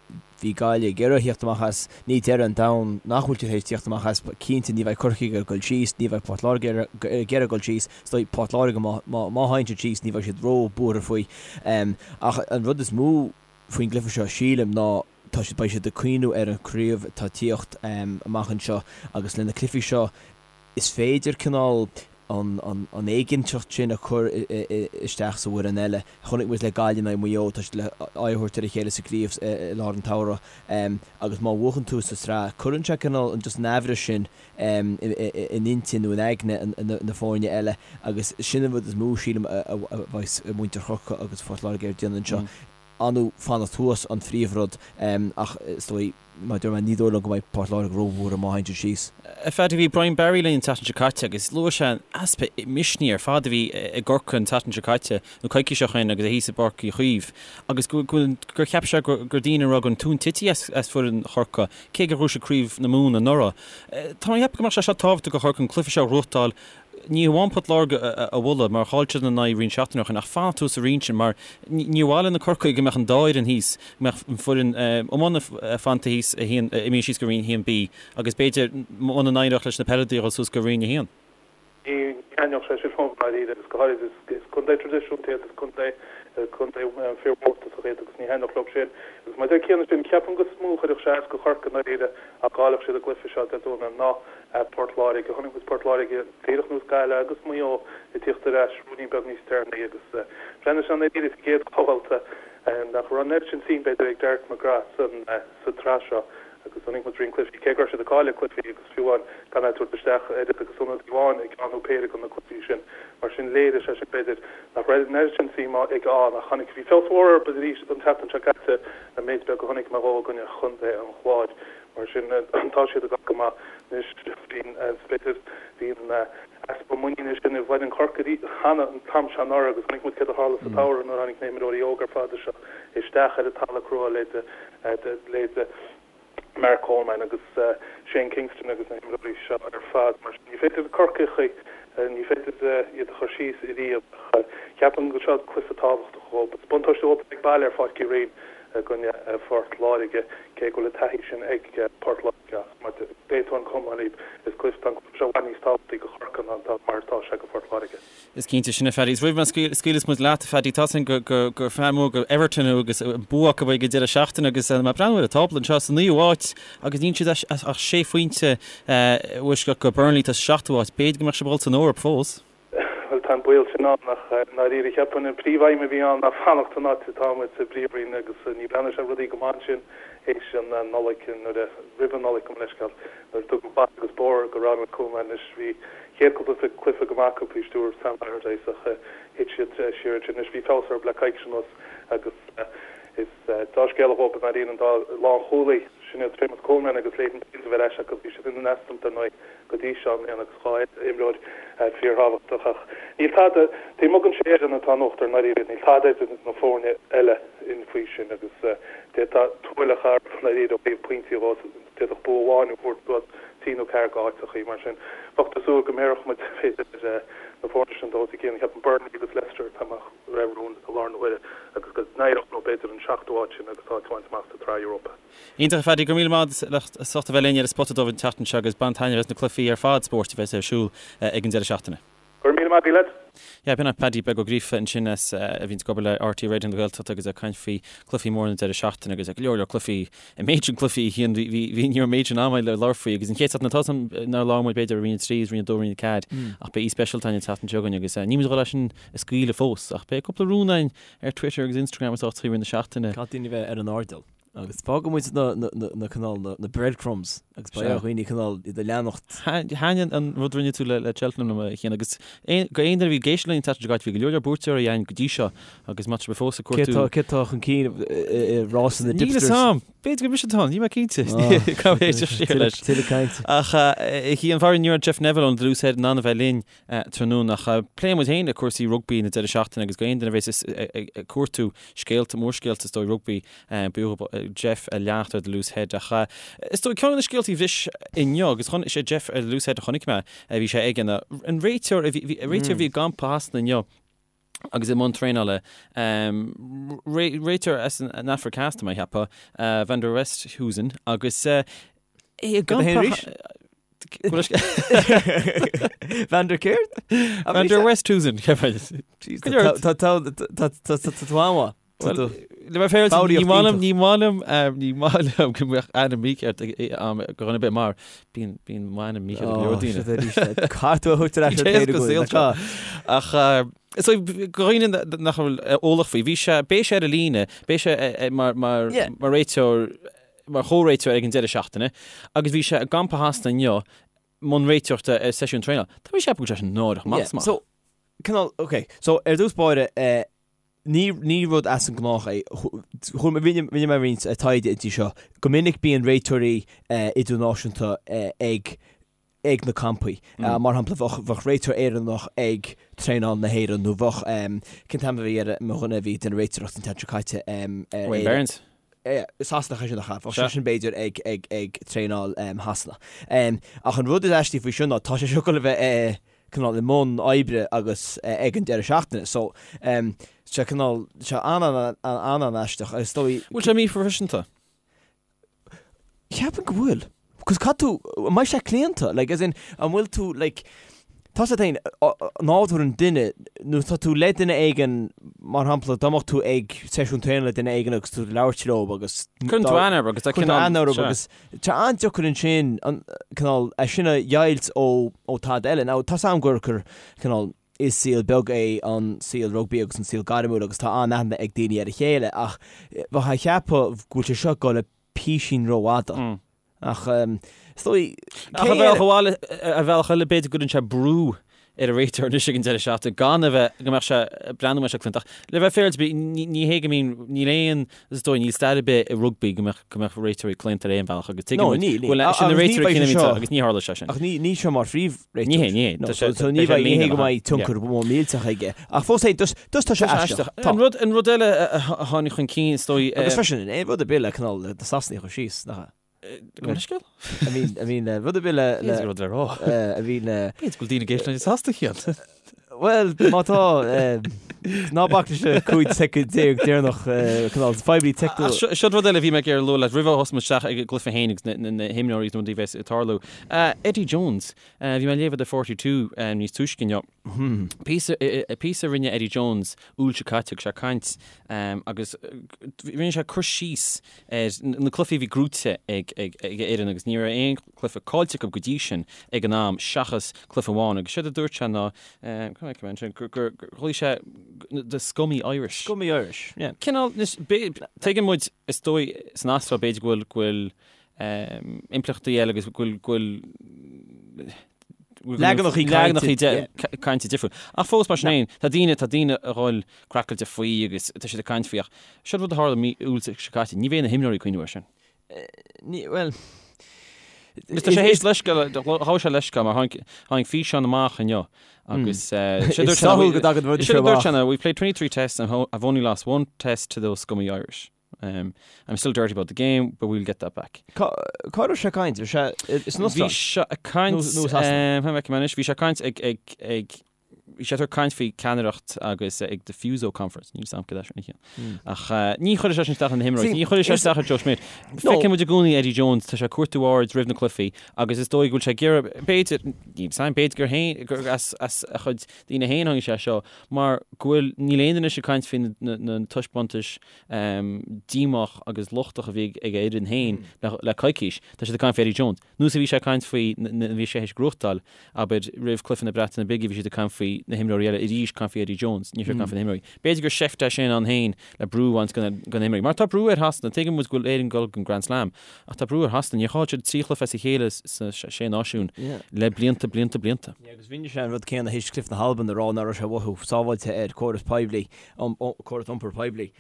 Bhí Gaillimh ag iarraidh theacht amach as, ní deireadh an domhain nach bhfuil siad théis tíocht amach as, cinnte ní bheidh Corcaigh ag iarraidh dul síos, ní bheidh Port Láirge ag iarraidh dul síos, is dóigh Port Láirge má má théann siad síos ní bheidh siad ró buartha faoi. Ach an rud is mó faoin gcluiche seo sílim ná tá siad beidh siad ag cuimhniú ar an chraobh atá ag tíocht amach anseo agus le na cluichí seo is féidir cineál an éiginnteacht sin a chur isteach sa bhfoireann eile. Chonaic muid le Gaillimh in aghaidh Mhaigh Eo, tá siad le aghaidh a thabhairt ar a chéile sa gcraobh i lár an tsamhraidh agus má bhuachann tú sa tsraith, cuireann sé cineál just an aimhreas sin in intinn nó in aigne na foirne eile agus sin an rud is mó, sílim, a bheas muintir Chorcaí agus Phort Láirge ag déanamh anseo. Ar ndóigh fanacht thuas an phríomhrud ach is dóigh, mar a dúirt mé, ní dóigh liom go mbeidh Port Láirge róbhuartha má théann siad síos. A Phaddy, bhí Brian Barry linn an tseachtain seo caite agus luaigh sé an easpa misnigh ar fad a bhí i gCorcaigh an tseachtain seo caite, nó coicís ó shin agus é thíos i bPáirc Uí Chaoimh, agus go gur cheap sé gur daoine a raibh an tóin tite as foireann Chorcaí, cé gur ghnóthaigh siad Craobh na Mumhan anuraidh. Tá mé ag ceapadh go mbeadh sé seo tábhachtach do Chorcaigh an cluiche seo a ghnóthachtáil Ní hamháin Port Láirge a bhualadh, mar chaill siad ina n-aghaidh roinnt seachtainí ó shin, ach fanacht thuas sa roinn sin, mar níor mhaith le na Corcaígh go mbeadh an dá fhoireann thíos, go mbeadh an foireann iomána fanta thíos a haon, imithe síos go Roinn 1B, agus b'fhéidir muna n-éireodh leis na peileadóirí a dhul suas go Roinn 1. Ní thaitneodh sé sin liom, i ndáiríre, agus go háirid is contae traidisiúnta iad, is contae contae fíormhórtasach iad agus ní thaitneodh leo sin. Agus mar a deir Cian ansin, ceapaim gur mó a chuirfeadh sé as do Chorcaigh i ndáiríre dá gcaillfeadh siad an gcluiche seo Dé Domhnaigh ná Port Láirge. Chonaic muid Port Láirge díreach ar nós Gaillimh agus Maigh Eo ag tíocht ar ais ruainnín beag níos deireanaí agus bhreathnaigh sé i ndáiríre sa gcéad bhabhta nach raibh an oiread sin suim b'fhéidir ag Derek McGrath sa tsraith seo. Agus chonaic muid roinnt cluichí, cé go raibh siad ag cailleadh cluichí agus fiú amháin gan é ag tabhairt isteach oiread agus ionadaí amháin i gceann nó péire de na cluichí sin. Mar sin léirigh sé sin, b'fhéidir, nach raibh an oiread sin suim aige ann ach chonaic, bhí feabhas mhór orthu arís an tseachtain seo caite, an méid beag a chonaic mé dhó i gcoinne Chontae an Chláir. Mar sin tá siad ag dul go maith anois. Bhí, b'fhéidir, bhí an easpa muiníne sin i bhfoireann Chorcaí cheana an t-am seo anuraidh agus chonaic muid céard a tharla sa tsamhradh nuair a tháinig na himreoirí óga ar fad seo isteach ar an talamh crua leithéid leithéid Mark Coleman agus Shane Kingston agus na himreoirí seo ar fad. Mar sin, ní féidir Corcaigh, ní féidir iad a chur síos ariamh ach cheapfainn go seo cluiche tábhachtach dhóibh. Is buntáiste dhóibh ag baile ar Pháirc Uí Rinn i gcoinne Phort Láirge, cé go bhfuil an taithí sin ag Port Láirge ach mar d'aontóinn go hiomlán libh, is cluiche, tá an cluiche seo i bhfad níos tábhachtaí do Chorcaigh ná mar atá sé do Phort Láirge. Is cinnte sin, a Phaddy. Is roimh má scaoileas muid leat, a Phaddy, tá 's againn gur fear mór go Everton thú agus bua acu ag an deireadh seachtaine agus mé ag breathnú ar an tábla anseo sa naoú háit agus níl siad ach sé phointe i bhfoisceacht go Burnley atá sa seachtú háit. B'fhéidir go mbeadh sibh ag dul san Eoraip fós. Bhuel, tá an baol sin ann ach i ndáiríre cheapfainn an príomhaidhm a bhí ann ná fanacht san áit atá muid sa bPríomhroinn agus ní bhreathnaigh sé rudaí go maith ansin théis an Nollaig nuair a, roimh an Nollaig gabh mo leithscéal, nuair a tugadh bata agus bóthar go Ronald Koeman anois bhí chéad cúpla cluiche go maith acu faoi stiúir Sam Allardyce ach thit siad siar ansin. Anois bhí feabhas orthu le coicís anuas agus is dea-scéala dhóibh i ndáiríre an dá lánchúlaí sin iad Seamus Coleman agus Leighton Baines a bheith ar ais acu. Bhí siad in easnamh dar ndóigh go dtí seo i mbliana agus dhá imreoir fíorthábhachtach ach níl tada taobh amuigh den sé fhoireann atá in uachtar i ndáiríre níl tada idir na foirne eile faoi sin agus d'fhéadfá tuaileach a áireamh i ndáiríre ó thaobh pointí dhó. D'fhéadfadh bua amháin a thabhairt suas trí nó ceathair d'áiteachaí. Mar sin, bheadh tú ag súil go mbéarfadh muid, b'fhéidir, ar na foirne sin dul os a gcionn. Ceapaim Burnley agus Leicester atá amach roimh rún i láthair na huaire agus go n-éireodh leo, b'fhéidir, an seachtú háit sin agus áit a bhaint amach sa tSraith Europa. Iontach, a Phaddy. Go raibh míle maith agat as ucht a bheith linn ar an Spota Dubh an tseachtain seo agus bain taitneamh as na cluichí ar fad spóirt a bheas ar siúl ag an deireadh seachtaine. Go raibh míle maith agat, lads. Yeah, b'in é Paddy Beag Ó Gríofa ansin as a bhíonns ag obair le RTÉ Raidió na Gaeltachta agus ag caint faoi cluichí móra na deireadh seachtaine agus go leor leor cluichí, an méid sin cluichí a Chian, bhí, bhí, bhí, ní raibh an méid sin ama le labhairt faoi agus an chéad seachtain atá san nár labhair muid b'fhéidir roinn 3 is roinn 2 roinn 4 ach beidh aoi speisialta againn an tseachtain seo chugainn agus níl muid ag dul é sin a scaoileadh fós ach beidh cúpla rún againn ar Twitter agus Instagram is áiteachaí i rith na seachtaine. Caithfidh daoine bheith ar an airdeall. Agus fágfaidh muid na cineál, na breadcrumbs agus beidh ar dhaoine cineál iad a leanacht. Thaitin an rud a rinne tú le Cheltenham liom, a Chian, agus go aon duine a bhí ag éisteacht linn an tseachtain seo caite, bhí go leor leor buaiteoirí againn go dtí seo agus má tá sibh fós ag cuartú. Cé atá chun cinn i rása na dtipsters? Níl fhios a'm. B'fhéidir gur mise atá ann, níl mé cinnte. Caithfidh mé éisteacht siar leis. Tuilleadh cainte. Ach a Chian, faraor ní raibh Jeff Neville ón The Loose Head in ann a bheith linn tráthnóna ach pléifidh muid féin le cúrsaí rugbaí na deireadh seachtaine agus go aon duine a bhéas ag cuartú scéalta, mórscéalta is dóigh rugbaí, b'fhiú Jeff a leanacht ar The Loose Head ach is dóigh ceann de na scéaltaí a bhris inniu agus chun, is é Jeff ar The Loose Head a chonaic mé, bhí sé aige ná an réiteoir a bhí, réiteoir a bhí i gcampa Shasana inniu agus i mbun traenála, réiteoir as an Afraic Theas tá mé a cheapadh, Van der Westhuizen agus é i gcampa Van der céard? Van der Westhuizen. Tá tú an-mhaith. Le bheith féaráilte, ní maith liom, ní maith liom, ní maith liom go mbeadh ainm mícheart ag go dhuine ar bith mar bíonn bíonn m'ainm mícheart ag go leor daoine. Caithfidh tú a thabhairt ar ais ar an taobh go seo. Ach so go dhaoine nach bhfuil eolach faoi, bhí sé, beidh sé ar an líne, beidh sé mar mar mar réiteoir mar chomhréiteoir ag an deireadh seachtaine agus bhí sé i gcampa Shasana inniu i mbun réiteoireachta ar seisiún traenála. Tá mé ag ceapadh go bhfuil sé sin náireach amach is amach. So, cineál, ok, so ar dtús báire, eh, ní, ní rud as an ngnách é, chuir, rinne, rinne mé roinnt eh, taighde inti seo, go minic bíonn réiteoirí eh, idirnáisiúnta eh, ag ag na campaí. Mar shampla, bheadh, bheadh réiteoir Éireannach ag traenáil na hÉireann nó bheadh, cén t-ainm a bhí ar mo dhuine a bhí ag déanamh réiteoireacht an tseachtain seo caite, ar Wayne Barnes. Sasanach é sin nach ea? Bheadh seisean b'fhéidir ag, ag, ag traenáil Shasana. Ach an rud is aistí faoi seo ná tá sé seo ag dul a bheith cineál i mbun oibre agus ag an deireadh seachtaine. So, sé cineál, sé an-an-an-aisteach agus is dóigh. Bhfuil sé míphroifisiúnta? Cheapfainn go bhfuil. Cos caithfidh tú, an mbeidh sé claonta? Like, as in, an bhfuil tú, like, tá sé féin, nádúr an duine, nó tá tú le duine éigin, mar shampla, dá mbeadh tú ag seisiún traenála le duine éigin agus tú ag labhairt leo agus... Cuireann tú aithne orthu agus tá cineál... Cuireann tú aithne orthu agus tá an-deacair ansin, an, cineál, é sin a dheighilt ó, ó tada eile. Now, tá 's a'm gur, gur, cineál, is saol beag é an saol rugbaí agus an saol gairmiúil agus tá an-aithne ag daoine ar a chéile ach bheifeá ag ceapadh go bhfuil sé seo ag dul písín rófhada. Ach is dóigh, Ach ar bhealach amháin, ar bhealach eile, b'fhéidir go gcuireann sé brú ar an réiteoir anois ag an deireadh seachtaine gan a bheith, go mbeadh sé, breathnú go mbeadh sé claonta. Ach le bheith féaráilte, ní hé go mbíonn, níl aon, is dóigh, níl stair ar bith i rugbaí go mbeadh, go mbeadh réiteoirí claonta ar aon bhealach agus tuigeann muid go bhfuil, sin na réiteoirí cinn a bhíonn agus ní tharla sé sin. Ach ní, ní seo mar phríomhréiteoir. Ní hé, ní hé. Tá sé, so ní bheidh, ní hé go mbeidh tionchar mór millteach aige. Ach fós féin, just, just tá sé aisteach. Tá. An rud, an rud eile a tháinig chun cinn, is dóigh. Agus freisin, aon rud ar bith le cineál na Sasanaigh a chur síos, nach ea? Gabh mo leithscéal? I mean, I mean, rud ar bith le, le, B'fhéidir rud le rá. I mean, B'fhéidir go bhfuil daoine ag éisteacht linn i Sasana cheana. Bhuel, má tá, ná bac leis na 15 soicind deireanach, cineál fadhbanna teicniúla. Ach seo rud eile a bhí mé ag iarraidh a lua leat roimh a thosóidh muid isteach ag an gcluiche féin agus na himreoirí agus na rudaí a bheas ag tarlú. Eddie Jones, bhí mé ag léamh i The 42 níos túisce inniu. Píosa, píosa a rinne Eddie Jones Iúil seo caite, agus sé ag caint agus rinne sé cur síos ar na cluichí a bhí gnóite ag a fhoireann agus ní raibh aon chluiche caillte acu go dtí sin ag an am seachas cluiche amháin agus séard a dúirt sé ná gur ghlaoigh sé the scummy Irish. Scummy Irish, yeah. Cineál, tuigeann muid is dóigh san Astráil b'fhéidir go bhfuil go bhfuil impleachtaí eile agus go bhfuil Leaganachaí cainte difriúil. Ach fós mar sin féin, tá daoine, tá daoine a dhul craiceáilte faoi agus tá siad ag caint faoi ach seo rud a tharla mí Iúil seo caite, ní bheidh na himreoirí ag cuimhneamh air sin. Ní, bhuel... Tá sé théis leithscéal, ghabh sé leithscéal mar tháinig, tháinig físeán amach inniu agus sé dúirt sé, go dtagann rudaí seo amach. Sé dúirt sé, we've played 23 tests and have only lost one test to those scummy Irish. I'm still dirty about the game, but we'll get that back. Cá raibh sé ag caint? Bhí sé san Astráil? Bhí sé ag caint, Nó Sasana? Cha bhfeicim anois, bhí sé ag caint ag, ag, ag, bhí sé ag caint faoi ceannaireacht agus ag the Fuso Conference, níl 'fhios a'm cad é sin a chiallaíonn. Ach ní chuirfidh sé sin isteach ar na himreoirí, ní chuirfidh sé isteach ar Joe Schmidt. Feiceann muid i gcónaí Eddie Jones, tá sé ag cuartú aird roimh na cluichí agus is dóigh go bhfuil sé ag iarraidh, b'fhéidir, níl 'fhios a'm, b'fhéidir gur féin, gur as, as a chuid daoine féin a tháinig sé seo, mar go bhfuil, níl aon duine anois ag caint faoi na, na, na taispeántais díomách agus lochtach a bhí ag a fhoireann féin le coicís. Tá siad ag caint faoi Eddie Jones. Nós a bhí sé ag caint faoi nuair a bhí sé théis gnóthachtáil, abair, roimh chluiche na Breataine Bige bhí siad ag caint faoi na himreoirí eile, arís caint faoi Eddie Jones, ní raibh siad ag caint faoi na himreoirí. B'fhéidir gur seift é sin ann féin le brú a bhaint de na himreoirí. Mar tá brú ar Shasana, tuigeann muid go bhfuil Éirinn ag dul don Grand Slam, ach tá brú ar Shasana. Níor chaill siad 3 chluiche as a chéile sna Sé Náisiún le blianta, blianta, blianta. Agus rinne sé an rud céanna théis cluiche na hAlban a rá nach raibh sé ag mothú sábháilte ar córas poiblí. córas iompair poiblí.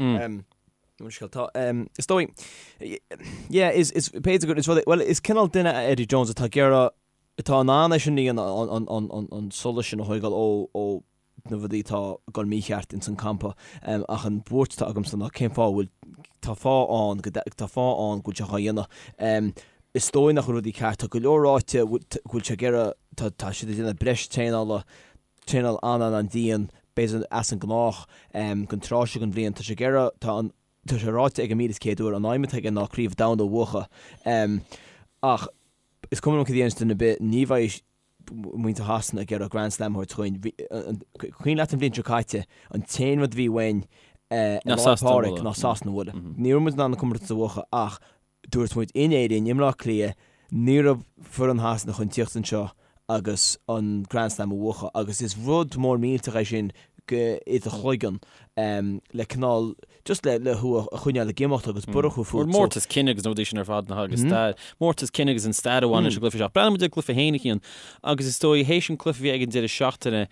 Tá, is dóigh, yeah, is, is, b'fhéidir gur, is rud é, bhuel, is cineál duine é Eddie Jones atá ag iarraidh, atá in ann é sin a dhéanamh, an, an, an, an solas sin a thógáil ó, ó na rudaí atá ag dul mícheart ins an campa. Ach an bhuairt atá agamsa ná cén fáth a bhfuil, tá fáth ann, go, tá fáth ann go bhfuil sé dhá dhéanamh. Is dóigh nach bhfuil rudaí ceart, tá go leor ráite go bhfuil sé ag iarraidh, tá, tá siad ag déanamh breis traenála, traenáil an-an-an-dian, b'fhéidir as an ngnách, don tráth seo den bhliain. Tá sé ag iarraidh, tá an, tá sé ráite aige 1,100 uair, an aidhm atá aige ná Craobh Domhanda a bhuachan. Ach is cuma liom cad a dhéananns duine ar bith, ní bheidh muintir Shasana ag iarraidh Grand Slam a thabhairt chugainn. Bhí, cuimhin leat an bhliain seo caite, an t-aon rud a bhí uainn i Lá 'le Pádraig ná Sasana a bhualadh. Ní raibh muid in ann an comórtas a bhuachan ach Dúirt muid in Éirinn, i mBleá Cliath, ní raibh foireann Shasana chun tíocht anseo agus an Grand Slam a bhuachan agus is rud mór millteach é sin go i do chloigeann le cineál just le le thú a choinneáil ag imeacht agus borradh a chur fút. Mórtas cine agus na rudaí sin ar fad nach agus stair, mórtas cine agus an stair a bhain leis an gcluiche seo. Breathnaíonn muid ar an gcluiche féin a Chian agus is dóigh théis an cluiche a bhí ag an deireadh seachtaine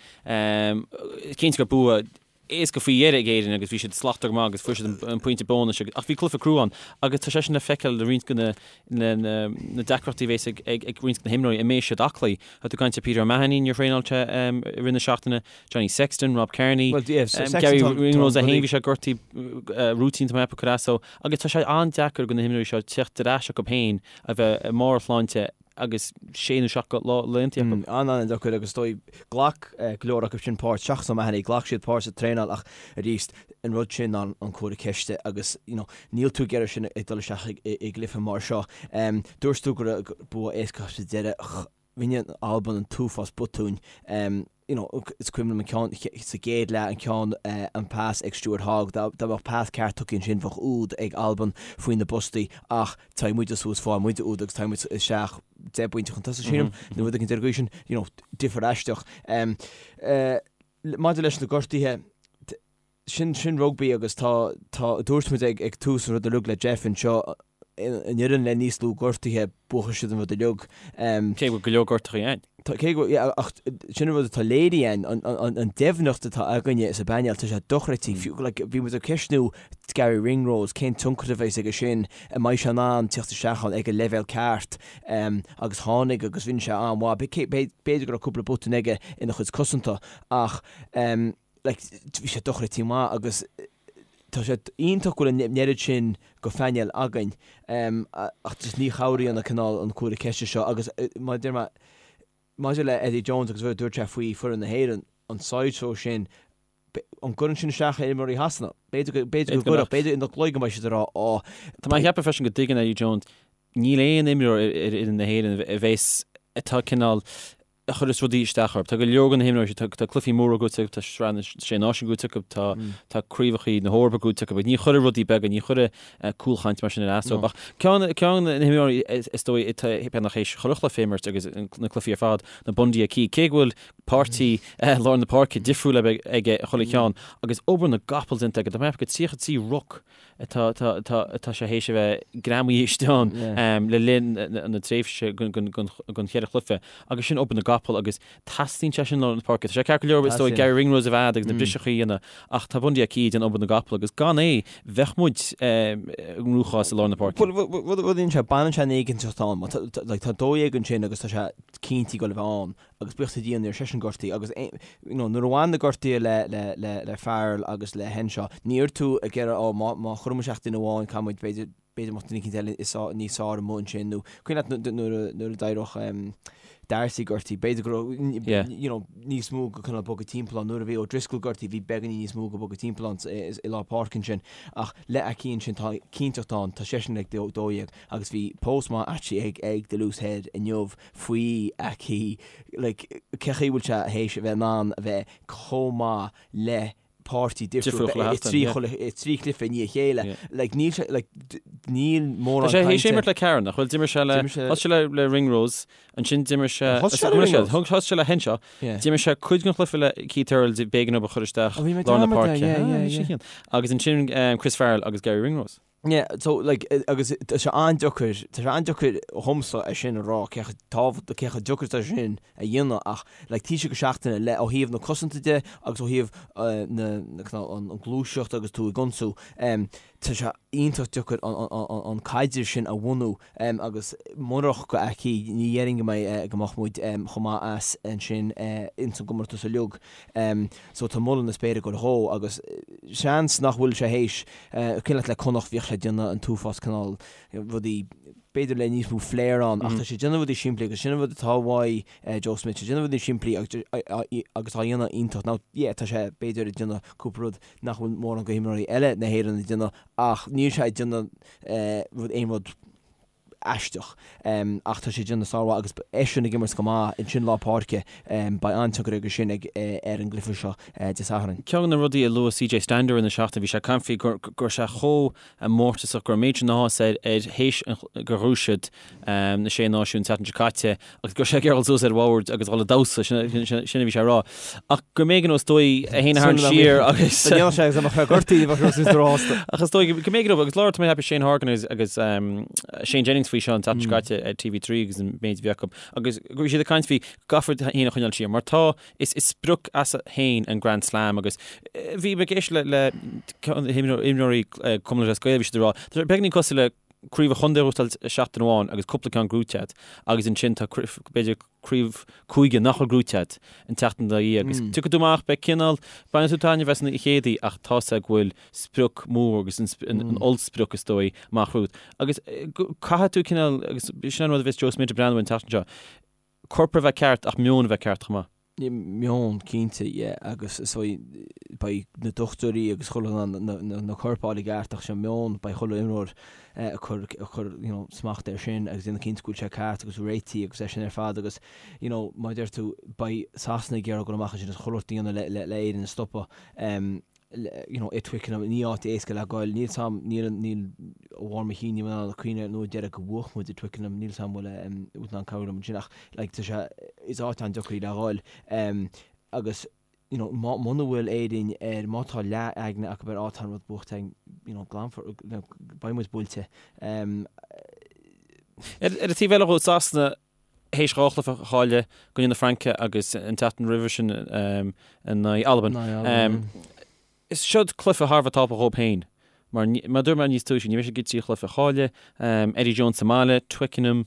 cinnte gur bua éasca faoi dheireadh ag Éirinn agus bhí siad slachtmhar go maith agus fuair siad an pointe bónais agus ach bhí cluiche crua ann agus tá sé sin le feiceáil le roinnt de na na na deacrachtaí a bhéas ag ag ag roinnt de na himreoirí an mbeidh siaclaí. Tá tú ag caint ar Peter O'Mahony níor thraenáil sé i rith na seachtaine, Johnny Sexton, Rob Kearney, Well, yeah, so Sexton Garry Ringrose é féin bhí sé gortaithe rúitín tá mé ag ceapadh cur as dó agus tá sé an-deacair do na himreoirí seo teacht ar ais acu féin a bheith i mbarr a shláinte agus sé nó seacht lá laethanta acu. An-an-deacair agus is dóigh, ghlac go leor acu sin páirt, seachas O'Mahony, ghlac siad páirt sa traenáil ach arís, an rud sin ná an comhartha ceiste agus you know níl tú ag iarraidh sin ag dul isteach i gcluiche mar seo. Dúirt tú go raibh bua éasca sa deireadh, rinne Albain an t-uafás botúin. You know, is cuimhin liom an ceann sa gcéad leath, an ceann, an pas ag Stuart Hogg, dá mbeadh pas ceart tugtha ansin bheadh úd ag Albain faoi na bpostaí ach téann muide suas, faigheann muide úd agus téann muid isteach 10 bpointe chun tosaigh sílim, nó rud éicint ar an gcaoi sin, you know, difear aisteach. Maidir leis na gortuithe, sin, sin rugbaí agus tá, tá, dúirt muid ag, ag tús an rud uilig le Jeff anseo. an fhoireann le níos lú gortuithe, buafaidh siad an rud uilig. Cé go bhfuil go leor gortuithe ann. Tá, cé go, yeah, ach sin an rud atá léirithe ann, an, an, an deimhneacht atá againne sa bpainéal, tá sé dochreidte. Fiú, like, bhí muid ag ceistniú Garry Ringrose, cén tionchar a bheas aige sin, an mbeidh sé in ann tíocht isteach ann ag an leibhéal ceart, agus tháinig agus rinne sé an-mhaith. B'fhéidir go raibh cúpla botún aige ina chuid cosanta ach, like, bhí sé dochreidte maith agus tá sé iontach go bhfuil an oiread sin go phainéal againn ach just ní chabhraíonn an cineál an cúlra ceiste seo agus mar a deir mé maidir le Eddie Jones agus rud a dúirt sé faoi foireann na hÉireann, an sideshow sin, an gcuireann sin isteach ar imreoirí Shasana? B'fhéidir go, b'fhéidir go gcuirfeadh, b'fhéidir ina gcloigeann go mbeidh siad ag rá, á, Tá mé ag ceapadh freisin go dtuigeann Eddie Jones níl aon imreoir ar fhoireann na hÉireann a bheas atá cineál a chuireas rudaí isteach orthu. Tá go leor de na himreoirí, tá tá cluichí móra gnóite acu, tá Sraith na Sé Náisiún gnóite acu, tá tá craobhacha na hEorpa gnóite acu, ní chuirfidh rudaí beaga, ní chuirfidh cúlchaint mar sin ar as dóibh. Ach ceann ceann de na himreoirí is dóigh atá beagnach théis chuile chluiche a imirt agus na cluichí ar fad, ná Bundee Aki, cé go bhfuil páirtí lár na páirce difriúil aige chuile cheann agus obair na gcapall déanta aige, tá mé ag ceapadh 33 ruc atá atá sé théis a bheith greamaithe istigh ann le linn na tréimhse den cheithre chluiche agus sin obair na gcapall agus teastaíonn sé sin i lár na páirce. Tá sé ceart go leor is dóigh Garry Ringrose a bheith agus na briseacha a dhéanamh ach tá Bundee Aki ag déanamh obair na gcapall agus gan é bheadh muid i gcruachás i lár na páirce. Bhuel rud a dhéanann sé, baineann sé an éiginnteacht ann. Tá 12 ansin agus tá sé cinnte ag dul a bheith ann. agus buíochas le Dia ní raibh seisean gortaithe agus you know nuair a bhain na gortuithe le le le le Farrell agus le Henshaw ní raibh tú ag iarraidh ó má má chuireann muid isteach duine amháin caithfidh muid b'fhéidir b'fhéidir mbeadh duine eicínt eile is níos fearr amuigh ansin nó cuimhin leat nuair a nuair a d'éirigh um, Darcy gortaithe b'fhéidir go raibh yeah. you know, níos mó go cineál bogadh timpeall ann nuair a bhí O'Driscoll gortaithe bhí beagáinín níos mó go bogadh timpeall ann i lár páirce ansin ach le Aki ansin tá cinnteacht ann tá seisean ag 12 agus bhí post maith actually ag ag The Loose Head inniu faoi Aki, like, cé chaoi bhfuil sé théis a bheith in ann a bheith chomh maith le páirtí difriúil i dtrí i dtrí chluiche i ndiaidh a chéile. Like, níl sé, like, níl mórán cainte. Tá sé théis imirt le ceathrar, nach bhfuil? D'imir sé le, thosaigh sé le le Ringrose, ansin d'imir sé, Thosaigh sé le Ringrose? Thosaigh sé le Henshaw, d'imir sé cuid den chluiche le Keith Earls, b'éigean dó a chur isteach lár na páirce. Agus ansin Chris Farrell agus Garry Ringrose. Yeah, so like, agus tá sé an-deacair, tá sé an-deacair dhomsa é sin a rá, cé chomh tábhachtach, cé chomh deacair atá sé sin a dhéanamh ach like taoiseach go seachtaine le ó thaobh na cosanta de agus ó thaobh na, na, cineál an, an gluaiseacht agus tú ag ionsú, em, tá sé iontach deacair an, an, an, an caidreamh sin a bhunú, em, agus murach go Aki ní dhéarfainn go mbeidh, go mbeadh muid, em, chomh maith as ansin, eh, ins an gcomórtas uilig. Em, so tá moladh na spéire ag goil dhó agus seans nach bhfuil sé théis, cuimhin leat le Connacht bhíodh sé ag déanamh an t-uafás cineál rudaí b'fhéidir le níos mó flair ann ach tá sé ag déanamh rudaí simplí agus sin an rud atá uaidh Joe Schmidt, sé ag déanamh rudaí simplí agus agus á dhéanamh iontach. Now yeah tá sé b'fhéidir ag déanamh cúpla rud nach bhfuil mórán go himreoirí eile na hÉireann ag déanamh ach níl sé ag déanamh rud aon rud aisteach. Ach tá sé ag déanamh sármhaith agus eisean ag imirt go maith ansin lár páirce. Beidh an-tionchar aige sin ag ar an gcluiche seo Dé Sathairn. Ceann de na rudaí a luaigh CJ Stander in na seachtain, bhí sé ag caint faoi go raibh sé chomh mórtasach, go raibh an méid sin áthas air ar théis gur ghnóthaigh siad na Sé Náisiún an tseachtain seo caite agus go raibh sé ag iarraidh dul suas ar bhord agus dhul ag damhsa, sin a bhí sé a rá. Ach go mb'éigean dó is dóigh é féin a tharraingt siar agus. Dá ndéanfadh sé agus dá mbeadh sé gortaithe bheadh sé suas róshásta. Ach is dóigh go mb'éigean dó agus labhair tá mé ag ceapadh Shane Horgan agus agus Shane Jennings faoi seo an tseachtain seo caite ar TV3 agus an méid a bhí acu agus go bhí siad ag caint faoi go gcaithfear é féin a choinneáil siar mar tá is is sprioc as féin an Grand Slam agus bhí mé ag éisteacht le le himreoirí Cumann Lúthchleas Gael bhí siad ag rá tá sé beagáinín cosúil le craobh an chontae a ghnóthachtáil seachtain amháin agus cúpla ceann gnóite agat agus ansin tá b'fhéidir craobh cúige nach bhfuil gnóite agat an tseachtain dá dhiaidh agus tiocfaidh tú amach, beidh cineál, bainfidh tú taitneamh as an chéad oíche ach tá's agat go bhfuil sprioc mór agus an ollsprioc is dóigh amach romhat agus caithfidh tú cineál agus sin an rud a bheas Joe Schmidt ag breathnú an tseachtain seo, corp a bheith ceart ach meon a bheith ceart chomh maith. Meon, cinnte, yeah, agus is dóigh beidh na dochtúirí agus chuile dhuine in ann na coirp a fháil i gceart ach sé an meon, beidh chuile imreoir ag cur, ag cur, you know, smacht air sin agus déanamh cinnte go bhfuil sé ceart agus réitithe agus é sin ar fad agus, you know, mar a deir tú, beidh Sasana ag iarraidh dul amach ansin agus chuile shórt a dhéanamh le, le, le Éirinn a stopadh. You know, i Twickenham, ní áit éasca le goil. Níl 's a'm, níl, níl, ó bharr mo chinn, níl mé in ann cuimhneamh an uair deireadh go bhuaigh muid i Twickenham, níl 's a'm bhfuil, bhfuil tú in ann cabhrú liom ansin ach like tá sé, is áit an-deacair í le ghoil. Agus. you know, muna bhfuil Éirinn ar, má tá leath-aigne acu ar á tá an rud buaite againn, you know, glanfar, beidh muid buailte. Ar an taobh eile dhó, Sasana, théis 2 chluiche a chailleadh, i gcoinne na Fraince agus an tseachtain roimhe sin in aghaidh Albain. Is seod cluiche thar a bheith tábhachtach dhóibh féin mar, mar a dúirt mé níos túisce, ní bheidh siad ag iarraidh 3 chluiche a chailleadh, Eddie Jones sa mbaile, Twickenham,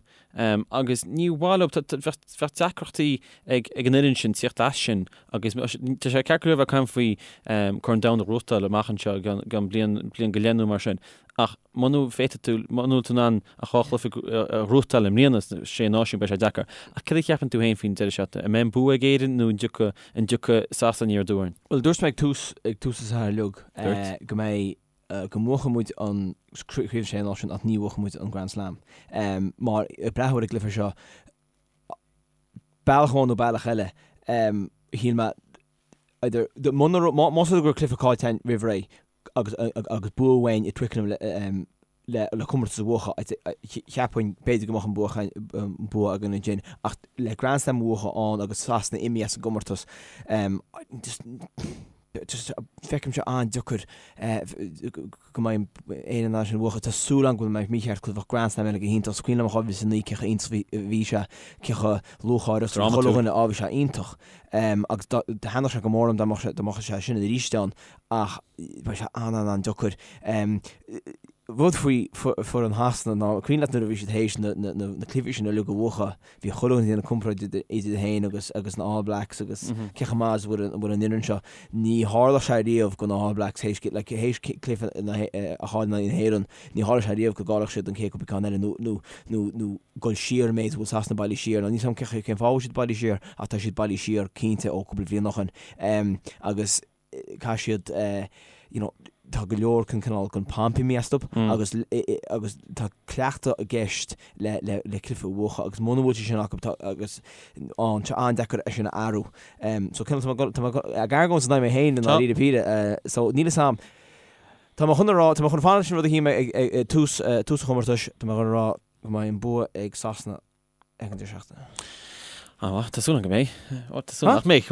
agus ní mhaith leo, bheadh deacrachtaí ag an fhoireann sin tíocht as sin agus tá sé ceart go leor a bheith ag caint faoi Corn Domhanda a ghnóthachtáil amach anseo i gceann bliain, bliain go leith nó mar sin ach muna bhféadfaidh tú, muna bhfuil tú in ann ach 2 chluiche a ghnóthachtáil i mbliana sna Sé Náisiún beidh sé deacair. Ach cad a cheapann tú féin faoin deireadh seachtaine? An mbeidh an bua ag Éirinn nó an dtiocfaidh, an dtiocfaidh Sasana aniar aduaidh orainn? Bhuel, dúirt mé ag tús, ag tús an tsaothair uilig go mbeidh, go mbuafaidh muid an Craobh Sé Náisiún ach ní bhuafaidh muid an Grand Slam. Mar, ag breathnú ar an gcluiche seo, bealach amháin nó bealach eile, shíl mé, either, muna raibh, más rud é go raibh cluiche caillte againn roimh ré, agus agus bua uainn i Twickenham le le comórtas a bhuachan, cheapfainn b'fhéidir go mbeadh an bua an bua againn ansin ach le Grand Slam a bhuachan ann agus Sasana imithe as an gcomórtas just just feicim sé an-deacair go mbeidh Éire in ann sin a bhuachan. Tá súil agam go bhfuil mé mícheart cos bheadh Grand Slam eile go hiontach. Is cuimhin liom 2009 cé chomh iontach a bhí sé, cé chomh lúcháireach is a bhí chuile dhuine, á bhí sé iontach. Agus thaitneodh sé go mór liom dá mbeadh sé sin arís ann. ach beidh sé an-an-an-deacair. Rud faoi foireann Shasana ná, cuimhin leat nuair a bhí siad théis na cluichí sin uilig a bhuachan, bhí chuile dhuine ag déanamh comparáid idir iad féin agus agus na All Blacks agus cé chomh maith is a bhfuil an fhoireann seo. Ní tharla sé riamh do na All Blacks théis like théis cluiche a chailleadh in aghaidh na hÉireann, ní tharla sé riamh go gcaillfeadh siad an chéad cúpla ceann eile nó nó nó nó dul siar an méid a bhfuil Sasana bailithe siar. Now níl 's agam cén fáth a bhfuil siad bailithe siar ach tá siad bailithe siar cinnte ó cúpla bliain ó shin. Agus caithfidh siad you know tá go leor den cineál den pomp imithe astu agus agus tá cleachtadh i gceist le le le cluiche a bhuachan agus muna bhfuil sé sin acu tá agus an tá an-deacair é sin a athrú. So cineál tá mé tá mé ag argóint in aghaidh mé féin i ndáiríre píre so níl 'fhios a'm tá mé chun a rá tá mé chun fanacht leis an rud a shíl mé ag ag tús tús an chomórtais tá mé chun a rá go mbeidh an bua ag Sasana ag an deireadh seachtaine. Á, tá súil agam go mbeidh. Ó, tá súil nach mbeidh.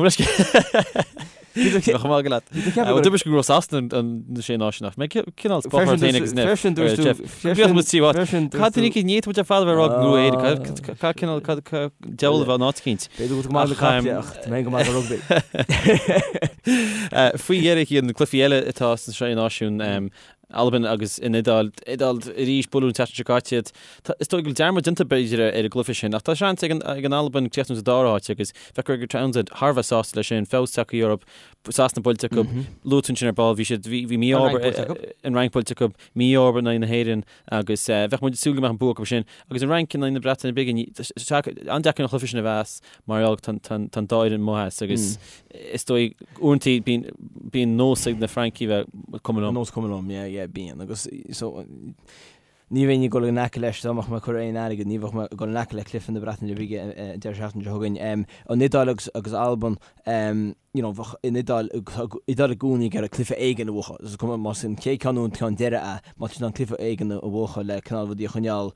Bheadh maith go leat. Dúirt go raibh Sasana na sé náisiún ach mé cineál spáthar féin agus Neff. Freisin dúirt tú. Bhíodh muid tí bhat. Cad ní ní muid ar fad a bheith rá go raibh Éire. Cad cineál cad deabhal a bheith an áit cinnte. B'fhéidir go maith le caiple ach tá mé go maith go rugbaí. Faoi dheireadh na cluichí eile atá sna sé náisiún Albain agus an Iodáil. Iodáil arís, buaileadh an tseachtain seo caite iad. Is dóigh go bhfuil dearmad déanta b'fhéidir ar an gcluiche sin ach tá seans ag an Albain críochnú sa dara háit agus bheadh Gregor Townsend thar a bheith sásta leis sin, feabhas tagtha orthu, Sasana buailte acu, luaigh tú ansin ar ball, bhí siad, bhí mí-ádh, an Fhrainc buailte acu, mí-ádh in aghaidh na hÉireann agus bheadh muid ag súil go mbeadh an bua acu sin. Agus an Fhrainc in aghaidh na Breataine Bige, an-deacair an cluiche sin a mheas mar gheall tá an dá fhoireann amuigh as agus is dóigh uaireanta bíonn bíonn nós ag na Francaigh bheith cuma liom. Nós cuma liom, yeah, yeah, bíonn. Agus so ní bheinn ag dul in aice leis dá mbeadh mé ag cur aon airgead, ní bheadh mé ag dul in aice le cluiche na Breataine Bige an deireadh seachtaine seo chugainn. An Iodáil agus agus Albain, you know, bheadh an Iodáil, Iodáil i gcónaí ag iarraidh cluiche éigin a bhuachan. Is cuma más an chéad ceann nó an ceann deiridh é, má tá siad in ann cluiche éigin a bhuachan le cineál rudaí a choinneáil,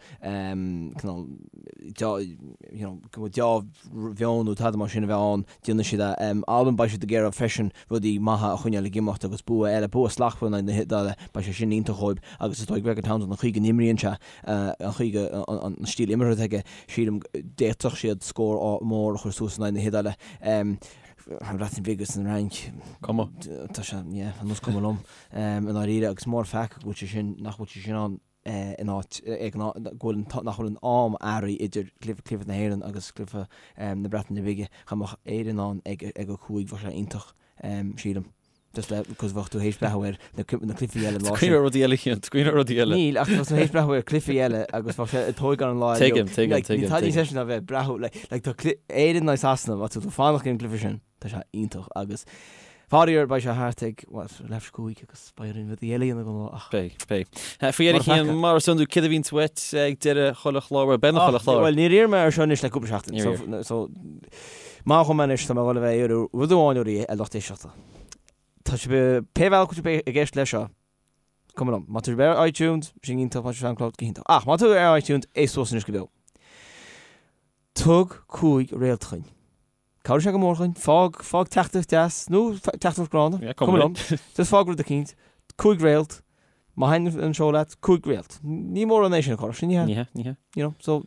cineál you know, go bhfuil deá-mheon nó tada mar sin a bheith ann. Déanfaidh siad é. Albain, beidh siad ag iarraidh freisin rudaí maithe a choinneáil ag imeacht agus bua eile, bua slachtmhar in aghaidh na hIodáile, beidh sé sin iontach dhóibh agus is dóigh Gregor Townsend an chaoi go n-imríonn sé, an chaoi go, an stíl imeartha atá aige, sílim d'fhéadfadh siad scór mór a chur suas in aghaidh na hIodáile. An Bhreatain Bhig agus an Fhrainc, Cuma. tá sé, yeah, ar nós cuma liom i ndáiríre agus mór an pheaca go bhfuil sé sin, nach bhfuil sé sin ann. in áit ag an go bhfuil nach bhfuil an am athraithe idir cluiche na hÉireann agus cluiche na Breataine Bige. Dá mbeadh Éire in ann ag ag a 5 bheadh sé iontach sílim. Just le cos bheadh tú théis breathnú ar na na cluichí eile an lá sin. Cuimhneamh ar rudaí eile Cian, cuimhneamh ar rudaí eile. Níl ach bheadh tú théis breathnú ar cluichí eile agus bheadh sé ag tógáil an lá eile. Tuigim, tuigim, tuigim. Níl tada níos deise ná bheith ag breathnú like like tá Éire in aghaidh Sasana má tá tú fanacht ag an gcluiche sin. Tá sé iontach agus faraor beidh sé thart ag, bhuel, leathuair tar éis 5 agus beidh orainn rudaí eile a dhéanamh don lá ach. Beidh, beidh. Faoi dheireadh Cian, mar is iondúil, céard a bhíonns uait ag deireadh chuile chlár, bhuel, beagnach chuile chlár. Bhuel, níor iarr mé air seo anois le cúpla seachtain. Níor iarr. So, maith dhom anois, tá mé ag dul a bheith ag iarraidh rud amháin oraibh, a lucht éisteachta. Tá sibh, pé bhealach go bhfuil sibh ag éisteacht leis seo, cuma liom. Má tá sibh ar iTunes, sin iontach, má tá sibh ar SoundCloud, go hiontach. Ach má tá tú ar iTunes, éist suas anois go beo. Tug 5 réalt dhuinn. Cabhróidh sé go mór dhúinn. Fág, fág teachtaireacht deas, nó teachtaireacht gránna. Yeah, cuma liom. Just fág rud eicínt. 5 réalt. Má thaitin an seó leat, 5 réalt. Ní mórán é sin a chur, sin ní hea. Ní hea, ní hea. You know, so,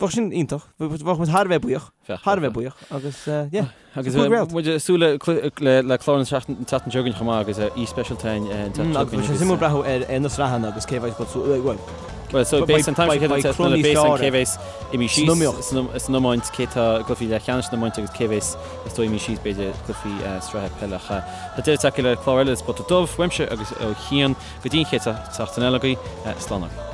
bheadh sin iontach. Bheadh muid thar a bheith buíoch. Thar a bheith buíoch. Agus, yeah. Agus muid ag súil le le clár an tseachtain seo chugainn chomh maith agus aoi speisialta an tseachtain seo chugainn. Agus suimiúil breathnú ar na sraitheanna agus cé bheidh bhuel, Well, so beidh an t-am seo céad beidh cé bheas imithe síos san iomáint, cé tá i gcluichí leathcheannais san iomáint agus cé bheas is dóigh imithe síos b'fhéidir cluichí sraithe peile. Tá deireadh tagtha le clár eile de Spota Dubh, uaimse agus ó Chian go dtí an chéad seachtain eile agaibh, slán agaibh.